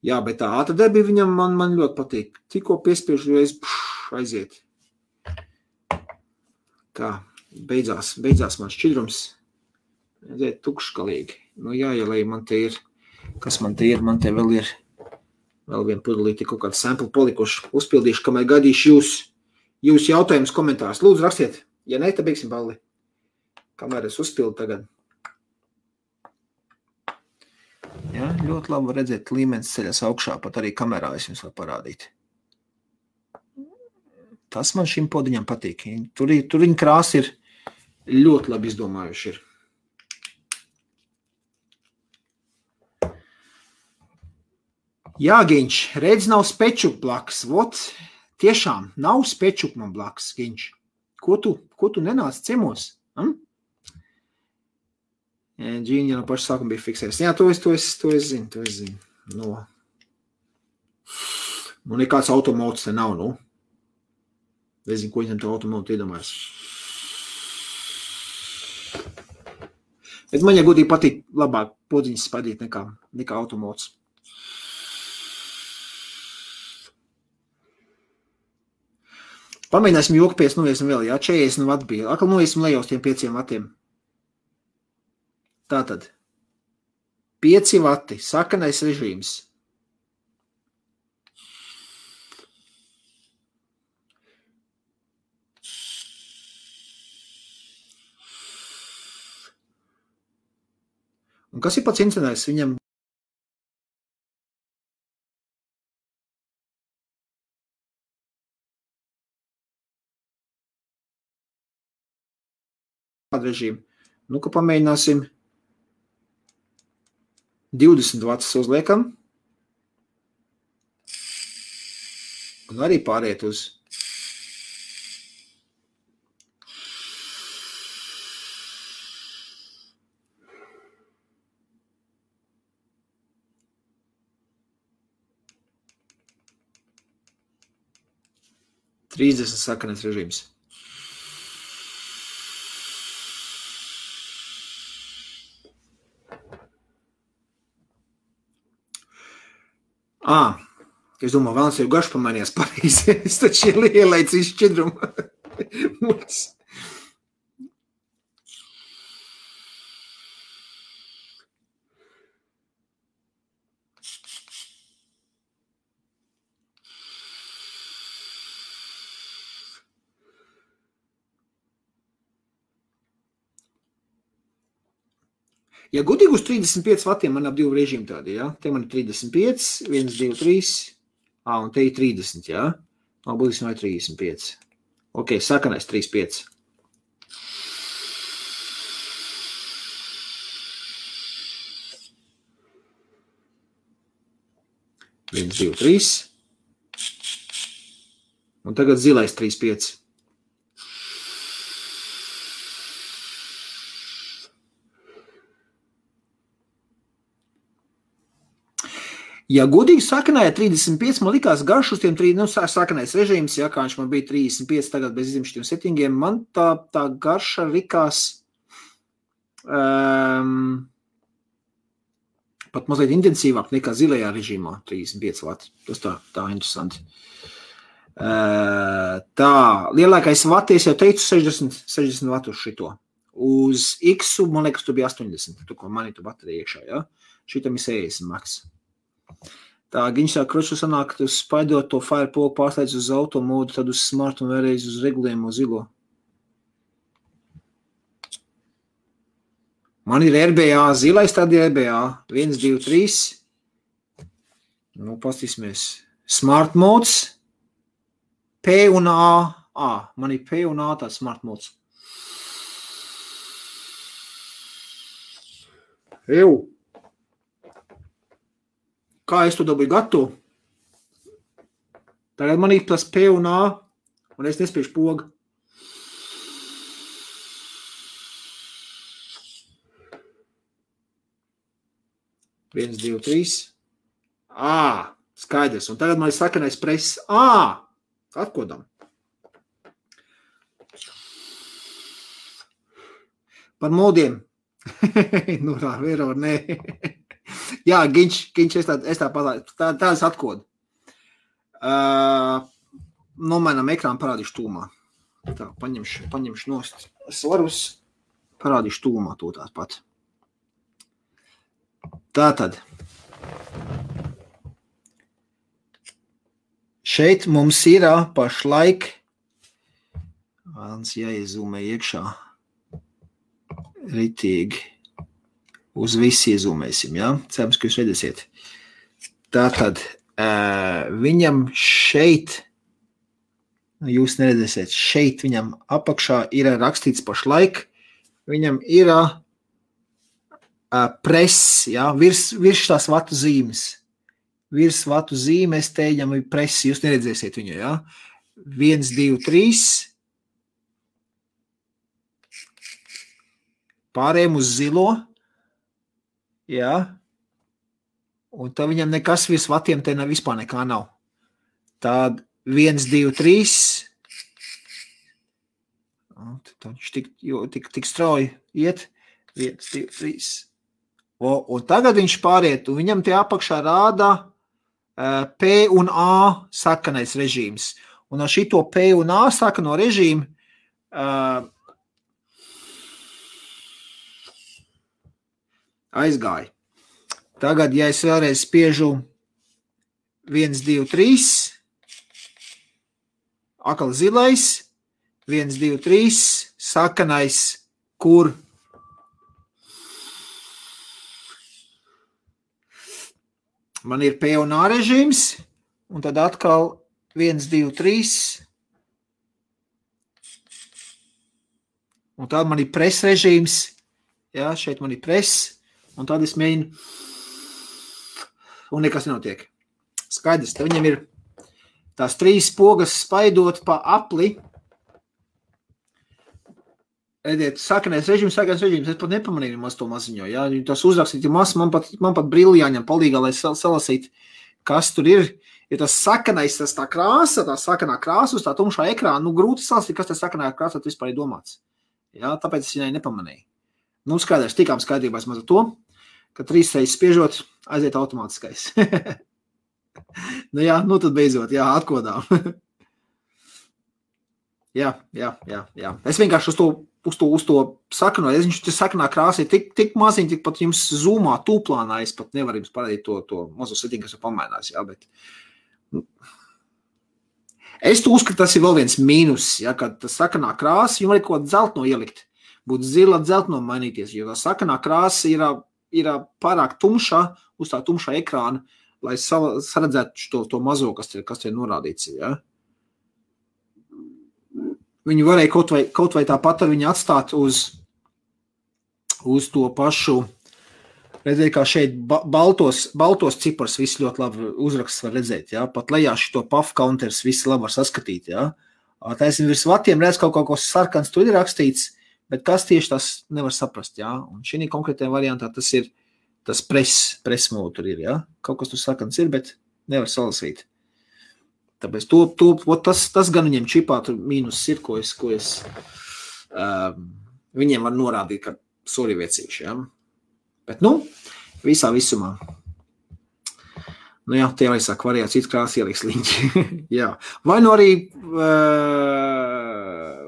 Jā, bet tā ātradarbība viņam man ļoti patīk. Tikko piespiežu reiz aiziet. Tā, beidzās man šķidrums. Aiziet tukškalīgi. Nu, jāielēj man te ir. Kas man te ir? Man te vēl ir vēl vienu pudelīti, kaut kādu sample palikuši. Uzpildīšu, kamēr gaidīšu jūs jautājumus komentārus. Lūdzu, rakstiet. Ja ne, tad beigsim balli. Kamēr es uzpildu tagad. Jā, ļoti labi var redzēt, līmenis ceļas augšā, pat arī kamerā es jums varu parādīt. Tas man šim podiņam patīk. Tur viņa krāsa ir ļoti labi izdomājuši ir. Jā, Giņš, redz nav spečuk blakus. Vot, tiešām nav spečuk man blakus, Giņš. Ko tu nenāc ciemos? Džīņa no paša sākuma bija fiksēs. Jā, to es zinu. No. Nu, nekāds automots te nav, nu. Nezinu, ko viņam to automotu iedomājas. Bet man, ja godīgi patīk labāk podziņas spadīt nekā automots. Pamēģināsim joku pēc, noviesim vēl, jā, 40 vati bija. Akal noviesim lejā uz tiem 5 vatiem. Tātad, 5 vati, sakanais režīms. Un kas ir pats interesantais? Viņam režīmu. Nu, ka pamēģināsim 20 vatus uzliekam. Un arī pāriet uz Trīsdesmit sakanais režīms. Es domāju, vēlams jau garš pamainījās pareizi. Es taču ielaicu izšķidrumu. Ja gudīgi uz 35 vatiem man ap 2 režīmi tādi, ja? Te man ir 35, 1, 2, 3, un te ir 30, ja? Būsim vai 35. Ok, sakanais 35. Viens, 2, 3. Un tagad zilais 35. Ja godīgi sakanāja 35, man likās garš uz tiem 3, sakanais režīms, ja, kā viņš man bija 35, tagad bez izimšķiem 7, man tā garša likās pat mazliet intensīvāk nekā zilajā režīmā 35 vati. Tas tā interesanti. Tā, lielākais vati, es jau teicu 60 vatu uz šito. Uz X-u, man liekas, tu bija 80, tu ko mani tu baterija iekšā, ja? Šitam ir 60 maks. Tā, Giņš tā kroču sanāk, tu spaidot to Firepolu pārslēdz uz auto modu, tad uz smart un vēlreiz uz regulējumu zilo. Man ir RBA, zilais tad ir RBA. 1, 2, 3. Nu, pastīsimies. Smart modes. P un A. Man ir P un A tāds smart modes. Eju. Kā es to dabūju gatavu? Tagad man ir tas P un A, un es nespēšu pogu. Viens, 2, 3. Skaidrs. Un tagad man ir sakanais press. Atkodam. Par modiem. Nu, vēro, nē. Jā, Giņš, es tā palaidu. Tādas atkodu. Nomainām ekrānu, parādīšu tūmā. Tā, paņemšu nost svarus, parādīšu tūmā to tāpat. Tātad. Šeit mums ir pašlaik, vēlams jāiezūmē iekšā, ritīgi. Uz visi iezūmēsim, ja? Cerams, ka jūs redzēsiet. Tātad, viņam šeit, jūs neredzēsiet, šeit viņam apakšā ir rakstīts pašlaik, viņam ir press, ja? Virs tās vatu zīmes. Virs vatu zīmes, te viņam ir press, jūs neredzēsiet viņu, ja? 1, 2, 3. Pārējiem uz zilo. Jā, un tad viņam nekas virs vatiem te vispār nekā nav. Tad 1, 2, 3. Viņš tik strauji iet. 1, 2, 3. Un tagad viņš pāriet, un viņam tie apakšā rāda P un A sakanais režīms. Un ar šito P un A sakano režīmu aizgāja. Tagad, ja es vēlreiz spiežu 1, 2, 3, akal zilais, 1, 2, 3, sakanais, kur man ir P un A režīms, un tad atkal 1, 2, 3, un tad man ir press režīms, jā, šeit man ir press, un tad es mēģinu, un nekas nenotiek. Skaidrs, te viņam ir tās 3 pogas spaidot pa apli. Ediet, sakanais režīms, es pat nepamanīju maz to maziņo, jā, tas uzrakstīt, man pat brīli jāņem palīgā, lai salasīt, kas tur ir. Ja tas sakanais, tas tā krāsa, tā sakanā krāsa uz tā tumšā ekrāna, grūti salasīt, kas tas sakanā krāsa vispār ir domāts. Jā, tāpēc es viņai nepamanīju. Skaidrs, tikām skaidrībās maz ar to, ka 3 reizes spiežot, aiziet automātiskais. Jā, tad beidzot, jā, atkodām. Jā. Es vienkārši uz to sakanoju, viņš te sakanā krāsa ir tik maziņ, tik pat jums zoomā, tūplānā, es pat nevaru jums parādīt to mazo setiņu, kas jau pamainās, jā, bet es to uzskatu, tas ir vēl viens mīnus, ja, kad tas sakanā krāsa, jums vajag kaut dzeltno ielikt, būtu zila dzeltno mainīties, jo tā sakanā krāsa ir pārāk tumšā, uz tā tumšā ekrāna, lai saredzētu to mazo, kas te ir norādīts, ja. Viņi varēja kaut vai tāpat ar viņu atstāt uz to pašu, redzēt, kā šeit baltos cipars viss ļoti labi uzraksts var redzēt, jā, pat lejā šito puff counters viss labi var saskatīt, jā. Taisnība virs vatiem redz kaut ko sarkans tur ir rakstīts, bet kas tieši tas nevar saprast, jā, un šī konkrētajā variantā tas press mode tur ir, jā, kaut kas tur sarkans ir, bet nevar salasīt. Tāpēc tas gan viņiem čipā tur mīnus ir, ko es viņiem var norādīt, ka sori viecīši, ja? Bet, visā visumā. Jā, tie arī saka, variācijas krāsa ieliks liņķi. Jā. Vai arī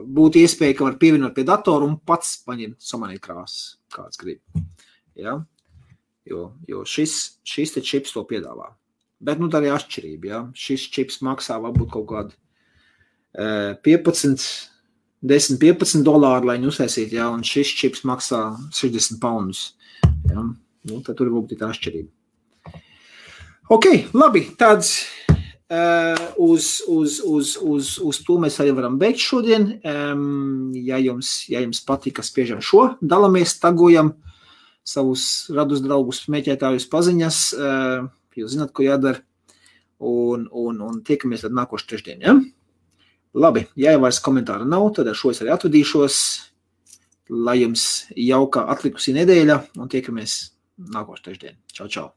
būtu iespēja, ka var pievienot pie datoru un pats paņemt samanīt krāsas, kāds grib. Jā? Jo šis te čips to piedāvā. Bet, tā arī atšķirība, ja. Šis čips maksā varbūt kaut kādu 10-15 dolāru, lai viņu uztaisītu, ja, un šis čips maksā 60 poundus. Ja. Tad tur varbūt ir tā atšķirība. Ok, labi, tāds uz to mēs arī varam beigt šodien. Ja jums patika, spiežam šo, dalamies, tagojam savus radus draugus, meķētājus paziņas, jūs zināt, ko jādara, un tiekamies tad nākošu trešdien, ja? Labi, ja jau vairs komentāra nav, tad ar šo es arī atvadīšos, lai jums jauka atlikusī nedēļa, un tiekamies nākošu trešdien. Čau, čau!